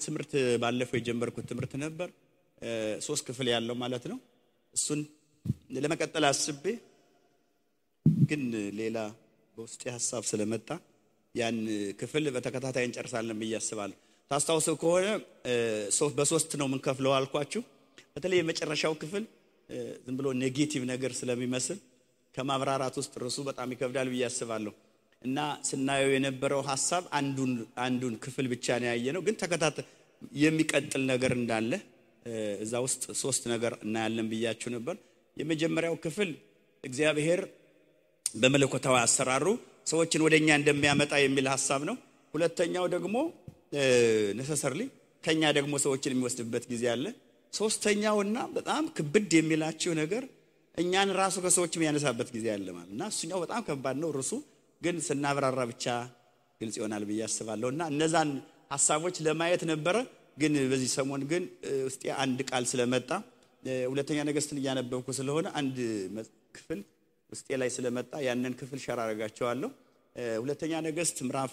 ትምህርት ባለፈው የጀመርኩት ትምህርት ነበር 3 ክፍል ያለው ማለት ነው እሱን ለመቀጠል አስቤ ግን ሌላ በውስጤ ሐሳብ ስለመጣ ያን ክፍል በተከታታይ እንጨርሳለን ብዬ አስባለሁ ታስታውሱ ከሆነ በ3 ነው ምን ከፍለው አልኳችሁ በተለይ የመጨረሻው ክፍል ዝም ብሎ ኔጌቲቭ ነገር ስለሚመስል ከማብራራት ውስጥ ርሱ በጣም ይከብዳል ብዬ አስባለሁ እና ስናየው የነበረው ሐሳብ አንዱን ክፍል ብቻ ነው ያየነው ግን ተከታታይ የሚቀጥል ነገር እንዳለ እዛ ውስጥ 3 ነገር እናያለን ብያችሁ ነበር የመጀመሪያው ክፍል እግዚአብሔር በመለኮታዊ አሰራሩ ሰዎችን ወደኛ እንደሚያመጣ የሚል ሐሳብ ነው ሁለተኛው ደግሞ necessarily ከኛ ደግሞ ሰዎችን የሚወስድበት ጊዜ አለ ሶስተኛውና በጣም ክብድ የሚላችሁ ነገር እኛን ራሱ ከሰዎች የሚያነሳበት ጊዜ አለ ማለትና እሱኛው በጣም ከባድ ነው ርሱ ግን ስናብራራ ብቻ ግልጽ ይሆናል ብዬ አስባለሁና እነዛን ሐሳቦች ለማየት ነበር ግን በዚህ ሰሞን ግን ውስጥ አንድ ቃል ስለመጣ ሁለተኛ ነገሥትን ያነበብኩ ስለሆነ አንድ ክፍል ውስጤ ላይ ስለመጣ ያንን ክፍል ሸራ አረጋቸዋለሁ ሁለተኛ ነገሥት ምዕራፍ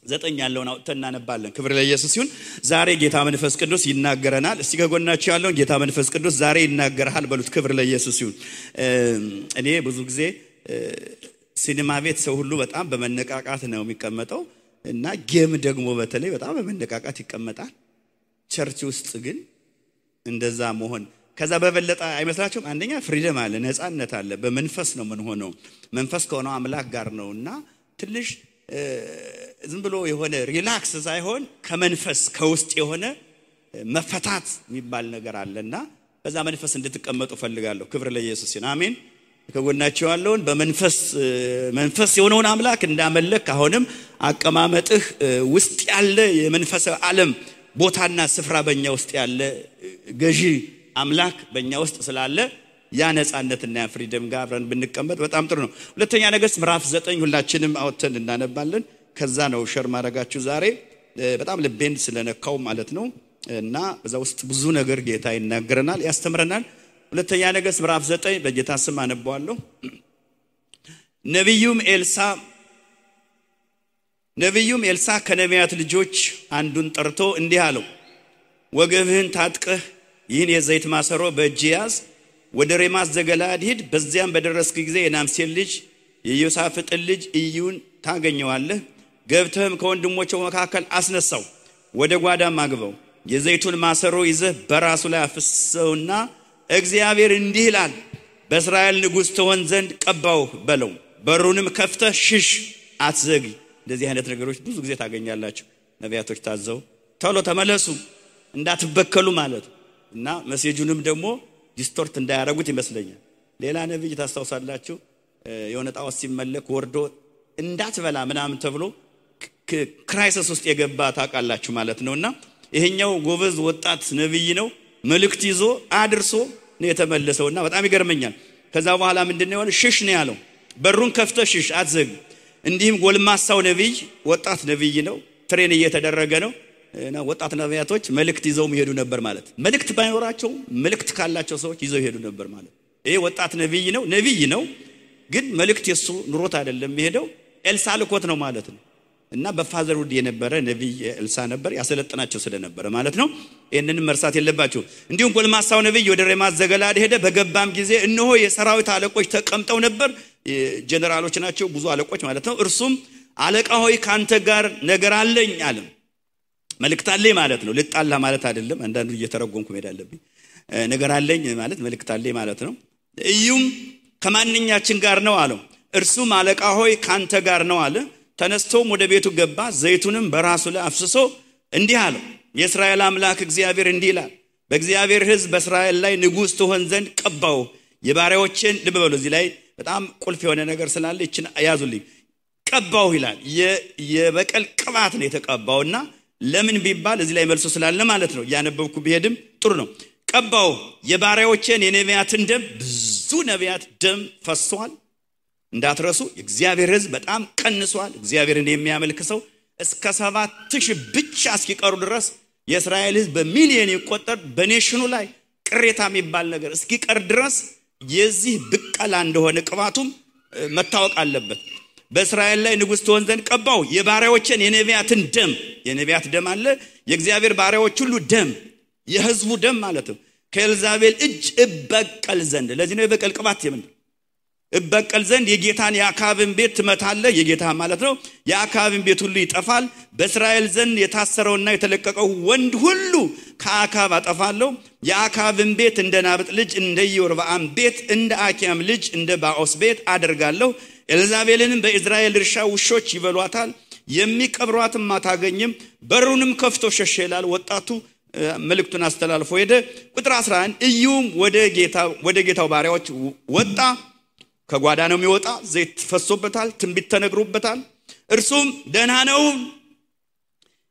9 ያለውን አውጥተን እናነባለን ክብር ለኢየሱስ ይሁን ዛሬ ጌታ መንፈስ ቅዱስ ይናገረናል እስቲ ከጎናችሁ ያለውን ጌታ መንፈስ ቅዱስ ዛሬ ይናገራል በሉት ክብር ለኢየሱስ ይሁን እኔ ብዙ ጊዜ ሲኒማ ቤት ሰው ሁሉ በጣም በመነቃቃት ነው የሚቀመጠው እና ጌም ደግሞ በተለይ በጣም በመነቃቃት ይቀመጣል ቸርች ውስጥ ግን እንደዛ መሆን ከዛ በበለጠ አይመስላችሁም አንደኛ ፍሪደም አለ ነፃነት አለ በመንፈስ ነው ምን ሆነው መንፈስ ከሆነው አምላክ ጋር ነውና ትንሽ ዝም ብሎ የሆነ ሪላክስ ሳይሆን ከመንፈስ ከውስጥ የሆነ መፈታት የሚባል ነገር አለና በዛ መንፈስ እንድትቀመጡ ፈልጋለሁ ክብር ለኢየሱስ ይሁን አሜን ከጎናችሁ ያለውን በመንፈስ የሆነውን አምላክ እንዳመለክ አሁንም አቀማመጥህ ውስጥ ያለ የመንፈስ ዓለም ቦታና ስፍራ በእኛ ውስጥ ያለ ገዢ አምላክ በእኛ ውስጥ ስላለ ያ ነፃነትና ያ ፍሪደም ጋር አብረን ብንቀመጥ በጣም ጥሩ ነው ሁለተኛ ነገሥት ምዕራፍ 9 ሁላችንም አውጥተን እናነባለን ከዛ ነው ሸር ማረጋችሁ ዛሬ በጣም ልቤን ስለነካው ማለት ነው እና በዛ ውስጥ ብዙ ነገር ጌታ ይናገረናል ያስተምረናል ሁለተኛ ነገሥት ምዕራፍ 9 በጌታ ስም አነባዋለሁ ነብዩም ኤልሳ ከነቢያት ልጆች አንዱን ጠርቶ እንዲህ አለው ወገብህን ታጥቀህ ይህን የዘይት ማሰሮ በእጅ ያዝ ወደ ሬማስ ዘገለዓድ ሂድ በዚያም በደረስክ ጊዜ የናምሴን ልጅ የዮሳፍጥን ልጅ ኢዩን ታገኘዋለህ ገብተህም ከወንድሞቹ መካከል አስነሳው ወደ ጓዳም አግባው የዘይቱን ማሰሮ ይዘህ በራሱ ላይ አፍስሰውና እግዚአብሔር እንዲህ ይላል በእስራኤል ንጉሥ ትሆን ዘንድ ቀባውህ በለው በሩንም ከፍተህ ሽሽ አትዘግይ እንደዚህ አይነት ነገሮች ብዙ ጊዜ ታገኛላችሁ ነቢያቶች ታዘው ቶሎ ተመለሱ እንዳትበከሉ ማለት እና መሴጁንም ደግሞ ዲስቶርት እንዳያረጉት ይመስለኛል ሌላ ነብይ ታስተውሳላችሁ የሆነ ጣዖት ሲመለክ ወርዶ እንዳትበላ ምናምን ተብሎ ክራይሲስ ውስጥ የገባ ታውቃላችሁ ማለት ነውና ይሄኛው ጎበዝ ወጣት ነብይ ነው መልእክት ይዞ አድርሶ ነው የተመለሰውና በጣም ይገርመኛል ከዛ በኋላ ምንድነው ያለው ሽሽ ነው ያለው በሩን ከፍተህ ሽሽ አትዘግ እንዲህም ጎልማሳው ነብይ ወጣት ነብይ ነው ትሬን እየተደረገ ነው እና ወጣት ነቢያቶች መልእክት ይዘው ይሄዱ ነበር ማለት መልእክት ባይኖራቸው መልእክት ካላቸው ሰዎች ይዘው ይሄዱ ነበር ማለት ይሄ ወጣት ነብይ ነው ግን መልእክት የሱ ኑሮት አይደለም ይሄደው ኤልሳ ልኮት ነው ማለት ነው እና በፋዘር ውድ የነበረ ነብይ ኤልሳ ነበር ያሰለጥናቸው ስለነበረ ማለት ነው ይሄንን መርሳት የለባችሁ እንዲሁም ጎልማሳው ነብይ ወደ ሬማስ ዘገለዓድ ሄደ በገባም ጊዜ እነሆ የሰራዊት አለቆች ተቀምጠው ነበር ጀነራሎች ናቸው ብዙ አለቆች ማለት ነው እርሱም አለቃ ሆይ ካንተ ጋር ነገር አለኝ አለ መልእክት አለኝ ማለት ነው ልጣላ ማለት አይደለም አንዳንዱ እየተረጎምኩ ሄዳለብኝ ነገር አለኝ ማለት መልእክት አለኝ ማለት ነው እዩም ከማንኛችን ጋር ነው አለው እርሱም አለቃ ሆይ ካንተ ጋር ነው አለ ተነስቶም ወደ ቤቱ ገባ ዘይቱንም በራሱ ላይ አፍስሶ እንዲህ አለው የእስራኤል አምላክ እግዚአብሔር እንዲህ ይላል በእግዚአብሔር ሕዝብ በእስራኤል ላይ ንጉሥ ትሆን ዘንድ ቀባው የባሪያዎችን ልብ በሉ እዚህ ላይ በጣም ቁልፍ የሆነ ነገር ስላለ እቺን ያዙልኝ ቀባው ይላል የበቀል ቅባት ነው የተቀባውና ለምን ቢባል እዚህ ላይ መልሶ ስላለ ማለት ነው ያነበብኩ ቢሄድም ጥሩ ነው ቀባው የባሪያዎችን የነቢያትን ደም ብዙ ነቢያት ደም ፈሷል እንዳትረሱ እግዚአብሔር ሕዝብ በጣም ቀንሷል እግዚአብሔርን የሚያመልክ ሰው እስከ 7000 ብቻ እስኪቀሩ ድረስ የእስራኤል ሕዝብ በሚሊዮን ይቆጠር በኔሽኑ ላይ ቅሬታ የሚባል ነገር እስኪቀር ድረስ የዚህ ብቀላ እንደሆነ ቅባቱም መታወቅ አለበት በእስራኤል ላይ ንጉሥ ትሆን ዘንድ ቀባው የባሪያዎችን የነቢያትን ደም የነቢያት ደም አለ የእግዚአብሔር ባሪያዎች ሁሉ ደም የሕዝቡ ደም ማለት ነው ከኤልዛቤል እጅ እበቀል ዘንድ ለዚህ ነው የበቀል ቅባት የምንለው እበቀል ዘንድ የጌታን የአካብን ቤት ትመታለህ የጌታ ማለት ነው የአካብን ቤት ሁሉ ይጠፋል በእስራኤል ዘንድ የታሰረውና የተለቀቀው ወንድ ሁሉ ከአካብ አጠፋለሁ የአካብን ቤት እንደ ናብጥ ልጅ እንደ ኢዮርብዓም ቤት እንደ አኪያም ልጅ እንደ ባኦስ ቤት አደርጋለሁ ኤልዛቤልንም በእስራኤል እርሻ ውሾች ይበሏታል የሚቀብሯትም አታገኝም በሩንም ከፍቶ ሸሸ ይላል ወጣቱ መልእክቱን አስተላልፎ ሄደ ቁጥር 11 ኢዩም ወደ ጌታው ባሪያዎች ወጣ ከጓዳ ነው የሚወጣ ዘይት ፈሶበታል ትንቢት ተነግሮበታል እርሱም ደህና ነው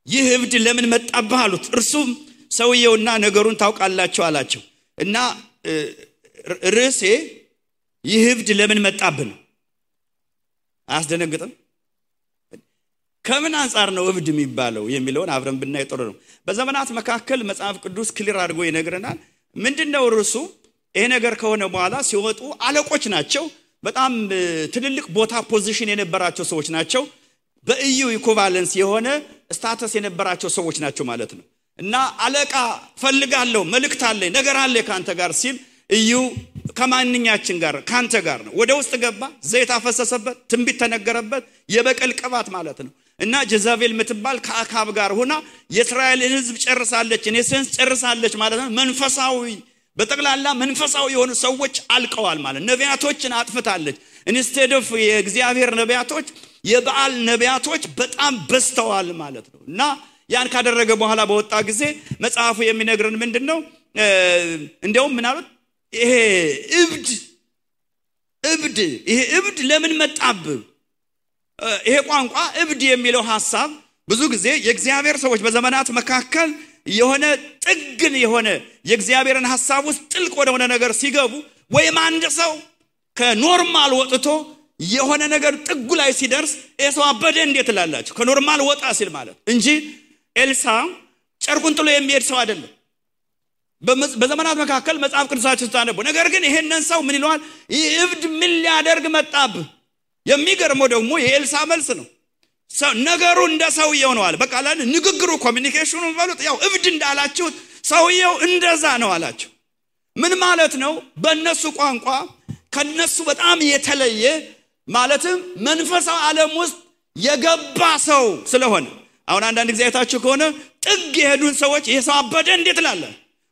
ይህ እብድ ለምን መጣብህ አሉት እርሱም ሰውየውና ነገሩን ታውቃላችሁ አላቸው እና ርዕሴ ይህ እብድ ለምን መጣብህ ነው አያስደነግጥም ከምን አንፃር ነው እብድ የሚባለው የሚለውን አብረን ብናይ ጥሩ ነው በዘመናት መካከል መጽሐፍ ቅዱስ ክሊር አድርጎ ይነግረናል ምንድነው ርዕሱ ይሄ ነገር ከሆነ በኋላ ሲወጡ አለቆች ናቸው በጣም ትልልቅ ቦታ ፖዚሽን የነበራቸው ሰዎች ናቸው በኢዩ ኢኩቫለንስ የሆነ ስታተስ የነበራቸው ሰዎች ናቸው ማለት ነው እና አለቃ ፈልጋለሁ መልእክት አለኝ ነገር አለ ካንተ ጋር ሲል ኢዩ ከማንኛችን ጋር ካንተ ጋር ነው ወደ ውስጥ ገባ ዘይት አፈሰሰበት ትንቢት ተነገረበት የበቀል ቅባት ማለት ነው እና ጀዛቤል ምትባል ከአካብ ጋር ሆና የእስራኤልን ሕዝብ ጨርሳለች እኔሰንስ ጨርሳለች ማለት ነው መንፈሳዊ በጠቅላላ መንፈሳዊ የሆኑ ሰዎች አልቀዋል ማለት ነቢያቶችን አጥፍታለች ኢንስቴድ ኦፍ የእግዚአብሔር ነቢያቶች የበዓል ነቢያቶች በጣም በስተዋል ማለት ነው እና ያን ካደረገ በኋላ በወጣ ጊዜ መጽሐፉ የሚነግረን ምንድነው እንደውም ምናልባት ይሄ እብድ ለምን መጣብህ ይሄ ቋንቋ እብድ የሚለው ሐሳብ ብዙ ጊዜ የእግዚአብሔር ሰዎች በዘመናት መካከል የሆነ ጥግን የሆነ የእግዚአብሔርን ሐሳብ ውስጥ ጥልቅ ወደሆነ ነገር ሲገቡ ወይም አንድ ሰው ከኖርማል ወጥቶ የሆነ ነገር ጥጉ ላይ ሲደርስ እሰው አበደ እንዴት ላላችሁ ከኖርማል ወጣ ሲል ማለት እንጂ ኤልሳ ጨርቁን ጥሎ የሚሄድ ሰው አይደለም በዘመናት መካከል መጽሐፍ ቅዱሳችን ታነቡ ነገር ግን ይሄንን ሰው ምን ይለዋል እብድ ምን ሊያደርግ መጣብህ የሚገርመው ደግሞ የኤልሳ መልስ ነው ነገሩ እንደ ሰውየው ነው አለ በቃ አላን ንግግሩ ኮሚኒኬሽኑ ባሉት ያው እብድ እንዳላችሁ ሰውየው እንደዛ ነው አላችሁ ምን ማለት ነው በእነሱ ቋንቋ ከነሱ በጣም የተለየ ማለትም መንፈሳዊ ዓለም ውስጥ የገባ ሰው ስለሆነ አሁን አንዳንድ ጊዜ አይታችሁ ከሆነ ጥግ የሄዱን ሰዎች ይሄ ሰው አበደ እንዴት ላለ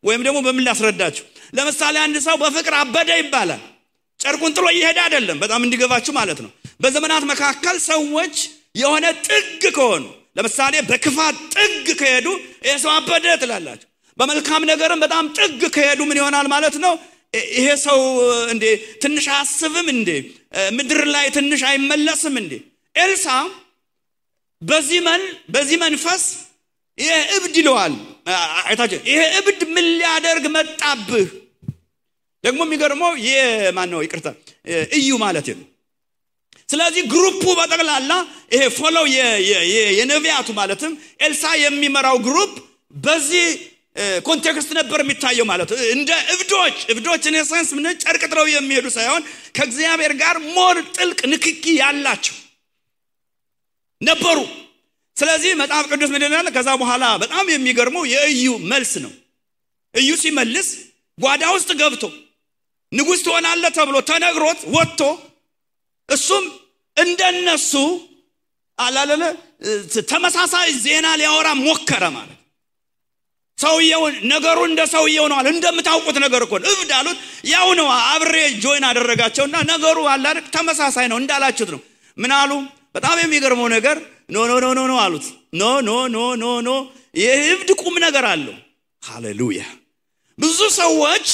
ወይም ደግሞ በምን ላስረዳችሁ ለምሳሌ አንድ ሰው በፍቅር አበደ ይባላል ጨርቁን ጥሎ ይሄድ አይደለም በጣም እንዲገባችሁ ማለት ነው በዘመናት መካከል ሰዎች የሆነ ጥግ ከሆኑ ለምሳሌ በክፋት ጥግ ከሄዱ እሰው አበደ ትላላችሁ በመልካም ነገርም በጣም ጥግ ከሄዱ ምን ይሆናል ማለት ነው ይሄ ሰው እንዴ ትንሽ አስብም እንዴ ምድር ላይ ትንሽ አይመለስም እንዴ ኤልሳ በዚህ መንፈስ ይሄ እብድ ይለዋል አይታችሁ ይሄ እብድ ምን ሊያደርግ መጣብህ ደግሞ የሚገርመው የማን ነው ይቅርታ ኢዩ ማለት ነው ስለዚህ ግሩፑ በጠቅላላ ይሄ ፎሎው የነቢያቱ ማለትም ኤልሳ የሚመራው ግሩፕ በዚህ ኮንቴክስት ነበር የሚታየው ማለት እንደ እብዶች ኢንሰንስ ምን ጨርቅ ጥለው የሚሄዱ ሳይሆን ከእግዚአብሔር ጋር ሞር ጥልቅ ንክኪ ያላቸው ነበሩ ስለዚህ መጽሐፍ ቅዱስ ምን ይላል ከዛ በኋላ በጣም የሚገርመው የኢዩ መልስ ነው ኢዩ ሲመልስ ጓዳ ውስጥ ገብቶ ንጉሥ ትሆናለህ ተብሎ ተነግሮት ወጥቶ እሱም እንደነሱ አላለለ ተመሳሳይ ዜና ሊያወራ ሞከረ ማለት ሰውየው ነገሩ እንደ ሰውየው ነው አለ እንደምታውቁት ነገር እኮ እብድ አሉት ያው ነው አብሬ ጆይን አደረጋቸውና ነገሩ አላልክ ተመሳሳይ ነው እንዳላችሁት ነው ምን አሉ በጣም የሚገርመው ነገር ኖ አሉት ኖ የእብድ ቁም ነገር አለው ሃሌሉያ ብዙ ሰዎች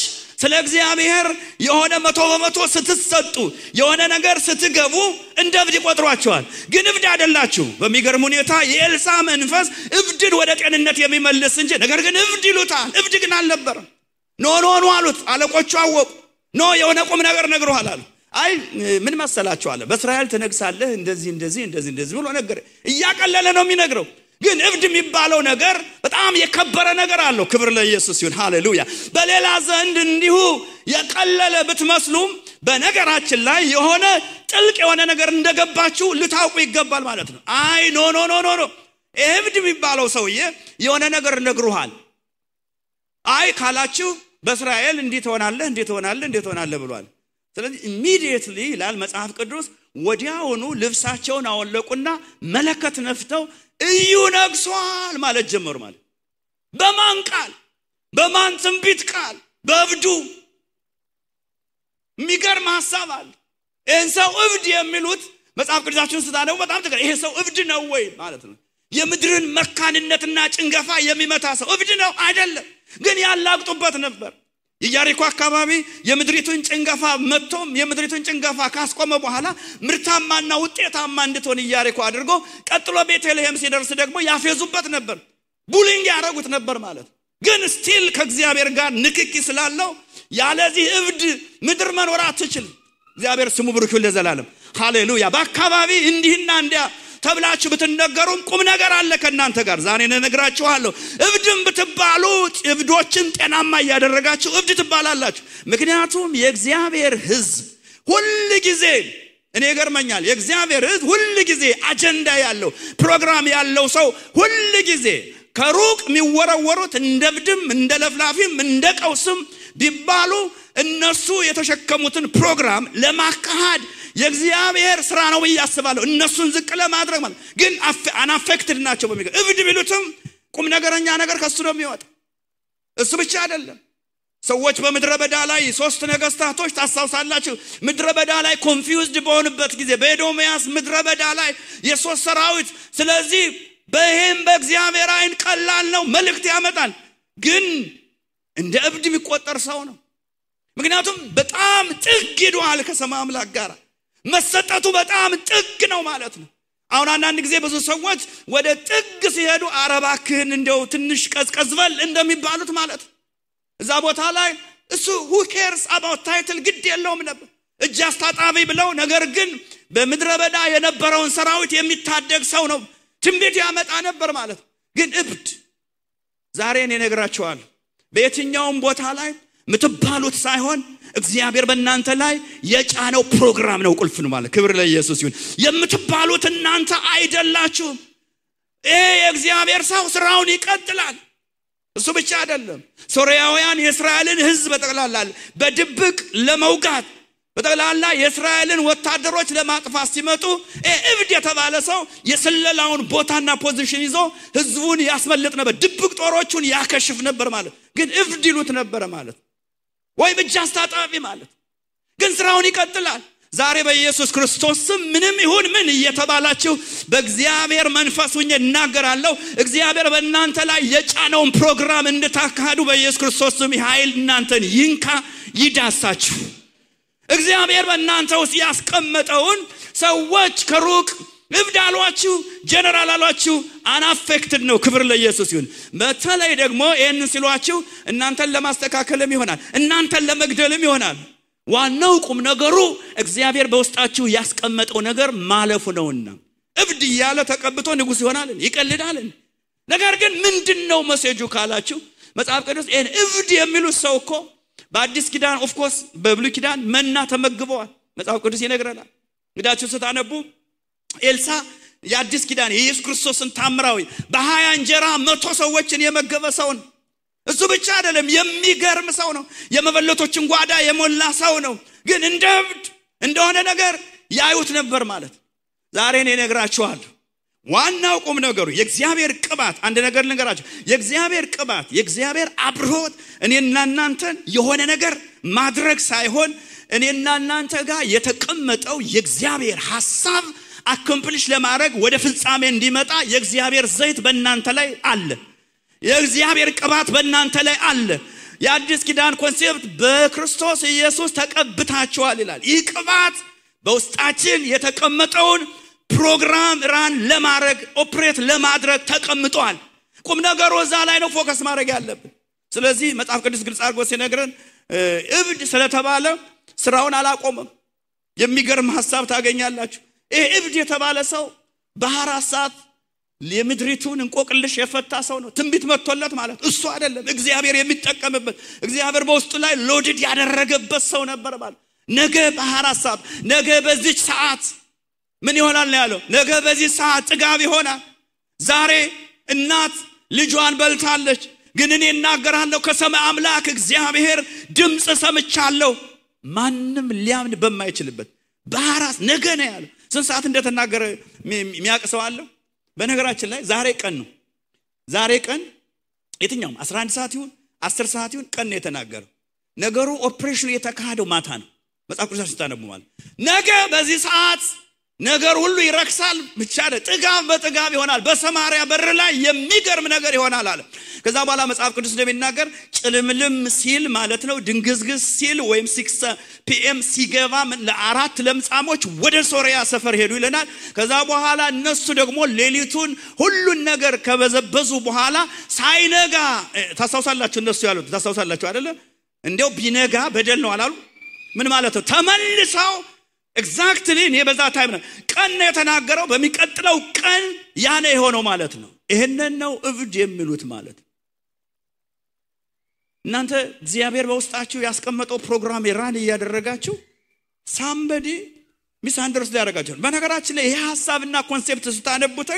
ስለ እግዚአብሔር የሆነ 100% ስትሰጡ የሆነ ነገር ስትገቡ እንደ እብድ ይቆጥሯቸዋል ግን እብድ አይደላችሁ በሚገርም ሁኔታ የኤልሳ መንፈስ እብድን ወደ ጤንነት የሚመልስ እንጂ ነገር ግን እብድ ይሉታል እብድ ግን አልነበረም ኖ አሉት አለቆቹ አወቁ የሆነ ቁም ነገር ነግሮሃል አሉ አይ ምን መሰላችሁ አለ በእስራኤል ተነግሳለህ እንደዚህ ብሎ ነገር እያቀለለ ነው የሚነግረው ግን እብድ የሚባለው ነገር በጣም የከበረ ነገር አለው ክብር ለኢየሱስ ይሁን ሃሌሉያ በሌላ ዘንድ እንዲሁ የቀለለ ብትመስሉም በነገራችን ላይ የሆነ ጥልቅ የሆነ ነገር እንደገባችሁ ልታውቁ ይገባል ማለት ነው። አይ ኖ ኖ ኖ ኖ እብድ የሚባለው ሰውዬ የሆነ ነገር ነግሩሃል። አይ ካላችሁ በእስራኤል እንዴት ሆናለህ ብሏል። ስለዚህ ኢሚዲየትሊ ይላል መጽሐፍ ቅዱስ ወዲያውኑ ልብሳቸውን አወለቁና መለከት ነፍተው እዩ ነግሷል ማለት ጀመሩ ማለት። በማን ቃል? በማን ትንቢት ቃል? በእብዱ። የሚገርም ሐሳብ አለ። ይህን ሰው እብድ የሚሉት መጽሐፍ ቅዱሳችሁን ስታነቡ በጣም ትገር ይሄ ሰው እብድ ነው ወይ ማለት ነው። የምድርን መካንነትና ጭንገፋ የሚመታ ሰው እብድ ነው አይደለም፣ ግን ያላግጡበት ነበር። የኢያሪኮ አካባቢ የምድሪቱን ጭንገፋ መጥቶም የምድሪቱን ጭንገፋ ካስቆመ በኋላ ምርታማና ውጤታማ እንድትሆን ኢያሪኮ አድርጎ ቀጥሎ ቤተልሔም ሲደርስ ደግሞ ያፌዙበት ነበር፣ ቡሊንግ ያደረጉት ነበር ማለት። ግን ስቲል ከእግዚአብሔር ጋር ንክኪ ስላለው ያለዚህ እብድ ምድር መኖር አትችልም። እግዚአብሔር ስሙ ብሩክ ይሁን ለዘላለም ሃሌሉያ። በአካባቢ እንዲህና እንዲያ ተብላችሁ ብትነገሩም ቁም ነገር አለ ከናንተ ጋር። ዛሬ ነግራችኋለሁ። እብድም ብትባሉ እብዶችን ጤናማ ያደረጋችሁ እብድ ትባላላችሁ። ምክንያቱም የእግዚአብሔር ሕዝብ ሁሉ ጊዜ እኔ ገርመኛል። የእግዚአብሔር ሕዝብ ሁሉ ጊዜ አጀንዳ ያለው ፕሮግራም ያለው ሰው ሁሉ ጊዜ ከሩቅ የሚወረወሩት እንደ እብድም እንደ ለፍላፊም እንደ ቀውስም ቢባሉ እነሱ የተሸከሙትን ፕሮግራም ለማካሃድ የእግዚአብሔር ስራ ነው ያስባሉ። እነሱን ዝቅ ለማድረግ ማለት ግን አናፌክትድ ናቸው በሚገር እብድ ቢሉትም ቁም ነገረኛ ነገር ከሱ ነው የሚወጣ። እሱ ብቻ አይደለም። ሰዎች በምድረ በዳ ላይ 3 ነገስታቶች ታሳውሳላችሁ። ምድረ በዳ ላይ ኮንፊውዝድ በሆኑበት ጊዜ በኤዶምያስ ምድረ በዳ ላይ የሶስት ሰራዊት። ስለዚህ በይሄም በእግዚአብሔር አይን ቀላል ነው መልእክት ያመጣል፣ ግን እንደ እብድ የሚቆጠር ሰው ነው። ምክንያቱም በጣም ጥግ ሄዷል ከሰማይ አምላክ ጋር መሰጠቱ በጣም ጥግ ነው ማለት ነው። አሁን አንዳንድ ጊዜ ብዙ ሰዎች ወደ ጥግ ሲሄዱ አረባክህን እንደው ትንሽ ቀዝቀዝበል እንደሚባሉት ማለት እዛ ቦታ ላይ እሱ who cares about title ግድ የለውም ነበር እጅ አስታጣቢ ብለው። ነገር ግን በምድረ በዳ የነበረውን ሰራዊት የሚታደግ ሰው ነው፣ ትንቢት ያመጣ ነበር ማለት። ግን እብድ ዛሬ እኔ ነግራችኋለሁ በየትኛውም ቦታ ላይ ምትባሉት ሳይሆን እግዚአብሔር በእናንተ ላይ የጫነው ፕሮግራም ነው ቁልፍ ነው ማለት። ክብር ለኢየሱስ ይሁን። የምትባሉት እናንተ አይደላችሁም። የእግዚአብሔር ሰው ስራውን ይቀጥላል። እሱ ብቻ አይደለም። ሶርያውያን የእስራኤልን ሕዝብ በጠቅላላ በድብቅ ለመውጋት በጠቅላላ የእስራኤልን ወታደሮች ለማጥፋት ሲመጡ እብድ የተባለ ሰው የስለላውን ቦታና ፖዚሽን ይዞ ሕዝቡን ያስመልጥ ነበር፣ ድብቅ ጦሮቹን ያከሽፍ ነበር ማለት። ግን እብድ ይሉት ነበር ማለት ወይ ብቻ አስታጣቢ ማለት። ግን ስራውን ይቀጥላል። ዛሬ በኢየሱስ ክርስቶስ ስም ምንም ይሁን ምን እየተባላችሁ በእግዚአብሔር መንፈስ ሆኜ እናገራለሁ። እግዚአብሔር በእናንተ ላይ የጫነውን ፕሮግራም እንድታካሂዱ በኢየሱስ ክርስቶስ ስም ኃይል እናንተን ይንካ ይዳሳችሁ። እግዚአብሔር በእናንተ ውስጥ ያስቀመጠውን ሰዎች ከሩቅ እብድ አሏችሁ ጀነራል አሏችሁ አናፌክትድ ነው። ክብር ለኢየሱስ ይሁን። በተለይ ደግሞ ይሄን ሲሏችሁ እናንተን ለማስተካከልም ይሆናል፣ እናንተን ለመግደልም ይሆናል። ዋናው ቁም ነገሩ እግዚአብሔር በውስጣችሁ ያስቀመጠው ነገር ማለፉ ነውና። እብድ ያለ ተቀብቶ ንጉስ ይሆናል ይቀልዳል። ነገር ግን ምንድነው መሴጁ ካላችሁ መጽሐፍ ቅዱስ ይሄን እብድ የሚሉት ሰው እኮ በአዲስ ኪዳን ኦፍ ኮርስ በብሉይ ኪዳን መና ተመግበዋል መጽሐፍ ቅዱስ ይነግረናል። እንግዳችሁ ስታነቡ ኤልሳ የአዲስ ኪዳን የኢየሱስ ክርስቶስን ታምራዊ በ20 እንጀራ 100 ሰዎችን የመገበ ሰው ነው። እሱ ብቻ አይደለም የሚገርም ሰው ነው። የመበለቶችን ጓዳ የሞላ ሰው ነው። ግን እንደ እብድ እንደሆነ ነገር ያዩት ነበር ማለት። ዛሬ እኔ ነግራችኋለሁ ዋናው ቁም ነገሩ የእግዚአብሔር ቅባት። አንድ ነገር ልንገራችሁ፣ የእግዚአብሔር ቅባት የእግዚአብሔር አብሮት እኔና እናንተን የሆነ ነገር ማድረግ ሳይሆን እኔና እናንተ ጋር የተቀመጠው የእግዚአብሔር ሐሳብ አኮምፕሊሽ ለማድረግ ወደ ፍጻሜ እንዲመጣ የእግዚአብሔር ዘይት በእናንተ ላይ አለ። የእግዚአብሔር ቅባት በእናንተ ላይ አለ። የአዲስ ኪዳን ኮንሴፕት በክርስቶስ ኢየሱስ ተቀብታችኋል ይላል። ይህ ቅባት በውስጣችን የተቀመጠውን ፕሮግራም ራን ለማድረግ ኦፕሬት ለማድረግ ተቀምጧል። ቁም ነገሩ እዛ ላይ ነው ፎከስ ማድረግ ያለብን። ስለዚህ መጽሐፍ ቅዱስ ግልጽ አድርጎ ሲነግረን እብድ ስለተባለ ስራውን አላቆመም። የሚገርም ሐሳብ ታገኛላችሁ። ይሄ እብድ የተባለ ሰው በ24 ሰዓት ለምድሪቱን እንቆቅልሽ የፈታ ሰው ነው። ትንቢት መጥቶለት ማለት እሱ አይደለም እግዚአብሔር የሚጠቀምበት እግዚአብሔር በውስጡ ላይ ሎድድ ያደረገበት ሰው ነበር ማለት። ነገ በ24 ሰዓት ነገ በዚህ ሰዓት ምን ይሆናል ያለው ነገ በዚህ ሰዓት ጥጋብ ይሆናል ዛሬ እናት ልጇን በልታለች ግን እኔ እናገራለሁ ከሰማይ አምላክ እግዚአብሔር ድምጽ ሰምቻለሁ ማንንም ሊያምን በማይችልበት በአራስ ነገ ነው ያለው ስንት ሰዓት እንደተናገረ የሚያቀሰው አለ በነገራችን ላይ ዛሬ ቀን ነው ዛሬ ቀን የትኛውም 11 ሰዓት ይሁን 10 ሰዓት ይሁን ቀን ነው የተናገረው ነገሩ ኦፕሬሽኑ የተካሄደው ማታ ነው መጽሐፍ ቅዱስ ሲታነቡ ማለት ነገ በዚህ ሰዓት ነገር ሁሉ ይረክሳል ብቻ ጥጋብ በጥጋብ ይሆናል በሰማሪያ በር ላይ የሚገርም ነገር ይሆናል አለ ከዛ በኋላ መጽሐፍ ቅዱስ እንደሚናገር ጭልምልም ሲል ማለት ነው ድንግዝግዝ ሲል ወይም 6 PM ሲገባ ለአራት ለምጻሞች ወደ ሶሪያ ሰፈር ሄዱ ይለናል ከዛ በኋላ እነሱ ደግሞ ሌሊቱን ሁሉን ነገር ከበዘበዙ በኋላ ሳይነጋ ታሳውሳላችሁ እነሱ ያሉት ታሳውሳላችሁ አይደለ እንደው ቢነጋ በደል ነው አላሉ ምን ማለት ነው ተመልሰው ኤግዛክትሊ እኔ በዛ ታይም ነው ቀን የተናገረው በሚቀጥለው ቀን ያኔ የሆነው ማለት ነው ይሄንን ነው እብድ የሚሉት ማለት እናንተ እግዚአብሔር በውስጣችሁ ያስቀመጠው ፕሮግራም የራን ያደረጋችሁ somebody misunderstood ያደረጋችሁ በነገራችን ላይ ይሄ ሐሳብና ኮንሴፕት ስታነቡት